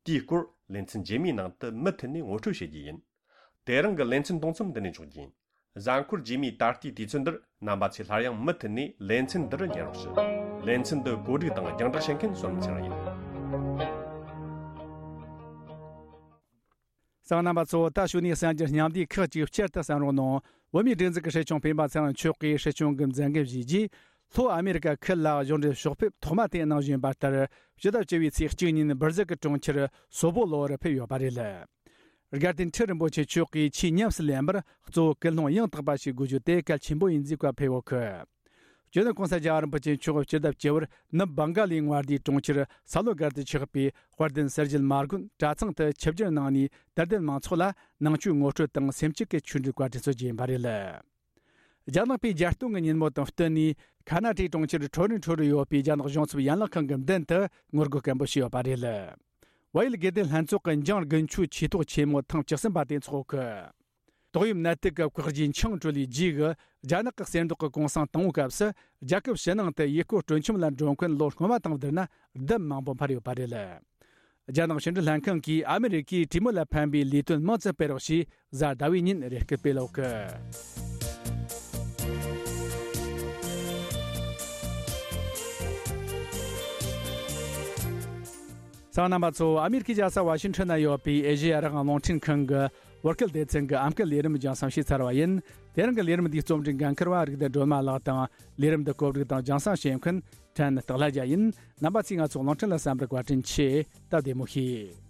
དེའི་སྐོར་ལེ་ཚན་རྗེས་མའི་ནང་དུ་མུ་མཐུད་ནས་ངོ་སྤྲོད་བྱེད་རྒྱུ་ཡིན། དེ་རིང་གི་ལེ་ཚན་གཏོང་མཚམས་འདི་ནས་འཇོག་རྒྱུ་ཡིན། གཟའ་འཁོར་རྗེས་མའི་ད་ལྟའི་དུས་ཚོད་འདིར་རྣམ་པ་ཚོས་སླར་ཡང་མུ་མཐུད་ནས་ལེ་ཚན་འདི་རུ་ཉན་རོགས་ཞུ། ལེ་ཚན་འདི་གོ་སྒྲིག་དང་རྒྱང་བསྒྲགས་བྱེད་མཁན་བསོད་ནམས་ཚེ་རིང་ཡིན། གསན་པ་རྣམ་པ་ཚོ། ད་གཞུག་ནས་གསར་འགྱུར་སྙིང་བསྡུས་ཁག་ཅིག་བསྐྱར་དུ་གསན་རོགས་གནང་། བོད་མིའི་སྒྲིག་འཛུགས་ཀྱི་སྲིད་སྐྱོང་སྤེན་པ་ཚེ་རིང་མཆོག་གིས་སྲིད་སྐྱོང་གི་མཛད་འགན་བཞེས་རྗེས། ལྷོ་ཨ་མེ་རི་ཀ་ཁུལ་ལ་གཞུང་འབྲེལ་ཕྱོགས་ཕེབས་ཐོག་མ་དེ་གནང་བཞིན་པ་ལྟར། ཕྱི་ཟླ་བཅུ་པའི་ཚེས་གཅིག་ཉིན་སྦིར་ཟིལ་གྱི་གྲོང་ཁྱེར་སོ་པོ་ལོ་རུ་ཕེབས་ཡོད་པ་རེད། དགའ་ལྡན་ཁྲི་རིན་པོ་ཆེ་མཆོག་གིས་ཆེས་ཉམས་སུ་ལེན་པར་གཙོ་བོ་ཀུན་སློང་ཡང་དག་པ་ཞིག་དགོས་རྒྱུ་དེ་གལ་ཆེན་པོ་ཡིན་ཟེར་བཀའ་ཕེབས་ཡོད་གི། སྤྱི་ནོར་གོང་ས་རྒྱལ་བ་རིན་པོ་ཆེ་མཆོག་སྤྱི་ཟླ་བཅུ་པར་ནུབ་སྦང་ག་ལའི་མངའ་སྡེའི་གྲོང་ཁྱེར་ས་ལོ་སྒར་དུ་ཆགས་པའི་དཔལ་ལྡན་གསེར་བྱེས་མ་དགོན་གྲྭ་ཚང་དུ་ཆིབས་བསྒྱུར་གནང་ནས། དད་ལྡན་མང་ཚོགས་ལ་ནང་ཆོས་ངོ་སྤྲོད་དང་སེམས་བསྐྱེད་ཀྱི་ཆོས་འབྲེལ་བཀའ་དྲིན་གསོལ་རྒྱུ་ཡིན་པ་རེད། རྒྱ་ནག་པས་རྒྱལ་སྟོན་གྱི་ཉིན་མོ་དང་བསྟུན་ནས། ཁ་ན་ཊའི་གྲོང་ཁྱེར་ཁྲོ་རི་ཁྲོ་རུ་ཡོད་པའི་རྒྱ་ནག་གཞུང་ཚབ་ཡན་ལག་ཁང་གི་མདུན་དུ་ངོ་རྒོལ་སྐད་འབོད་བྱས་ཡོད་པ་རེད། བལ་ཡུལ་དགེ་ལྡན་ལྷན་ཚོགས་ཀྱི་འཇང་དགུན་ཆོས་ཆོས་ཐོག་ཆེན་མོ་ཐེངས་བཅུ་གསུམ་པ་དེ་འཚོགས་གི། ཏོག་དབྱིབས་ནད་དུག་གི་བཀག་རྒྱའི་འཆིང་གྲོལ་ལས་རྗེས་ཀྱི་རྒྱ་ནག་གི་གསེར་མདོག་གི་གུང་སེང་དང་པོའི་སྐབས་སུ། རྒྱལ་ཁབ་ཕྱི་ནང་དུ་ཡུལ་སྐོར་སྤྲོ་འཆམ་ལ་འགྲོ་མཁན་ལོ་སྔོན་མ་དང་བསྡུར་ན་ལྡབ་མང་པོ་འཕར་ཡོད་པ་རེད། རྒྱ་ནག་ཕྱི་འབྲེལ་ལྷན་ཁང་གིས་ཨ་མི་རི་ཀས་གྲོས་མོལ་ལ་ཕན་པའི་ལས་དོན་མང་ཙམ་སྤེལ་རོགས་ཞེས་གཟའ་ཟླ་བའི་ཉིན་རེ་སྐུལ་སྤེལ་ཡོད་གི། གསན་པ་རྣམ་པ་ཚོ། ཨ་མི་རི་ཀའི་རྒྱལ་ས་ཝ་ཤིང་ཊོན་ན་ཡོད་པའི་ཨེ་ཤེ་ཡ་རང་དབང་རླུང་འཕྲིན་ཁང་གི་བོད་སྐད་སྡེ་ཚན་གྱི་ཨམ་སྐད་ལས་རིམ་རྒྱང་སྲིང་བྱས་ཚར་བ་ཡིན། དེ་རིང་གི་ལས་རིམ་འདིའི་རྩོམ་སྒྲིག་འགན་འཁུར་བ་རིག་ལྡན་སྒྲོལ་མ་ལགས་དང་། ལས་རིམ་འདི་གོ་སྒྲིག་དང་རྒྱང་སྲིང་བྱེད་མཁན་ཕྲན་སྟག་ལྷ་རྒྱལ་ཡིན། རྣམ་པ་ཚོས་ང་ཚོ་རླུང་འཕྲིན་ལ་གསན་པར་བཀའ་དྲིན་ཆེ། སྟབས་བདེ་མོ་བྱོས།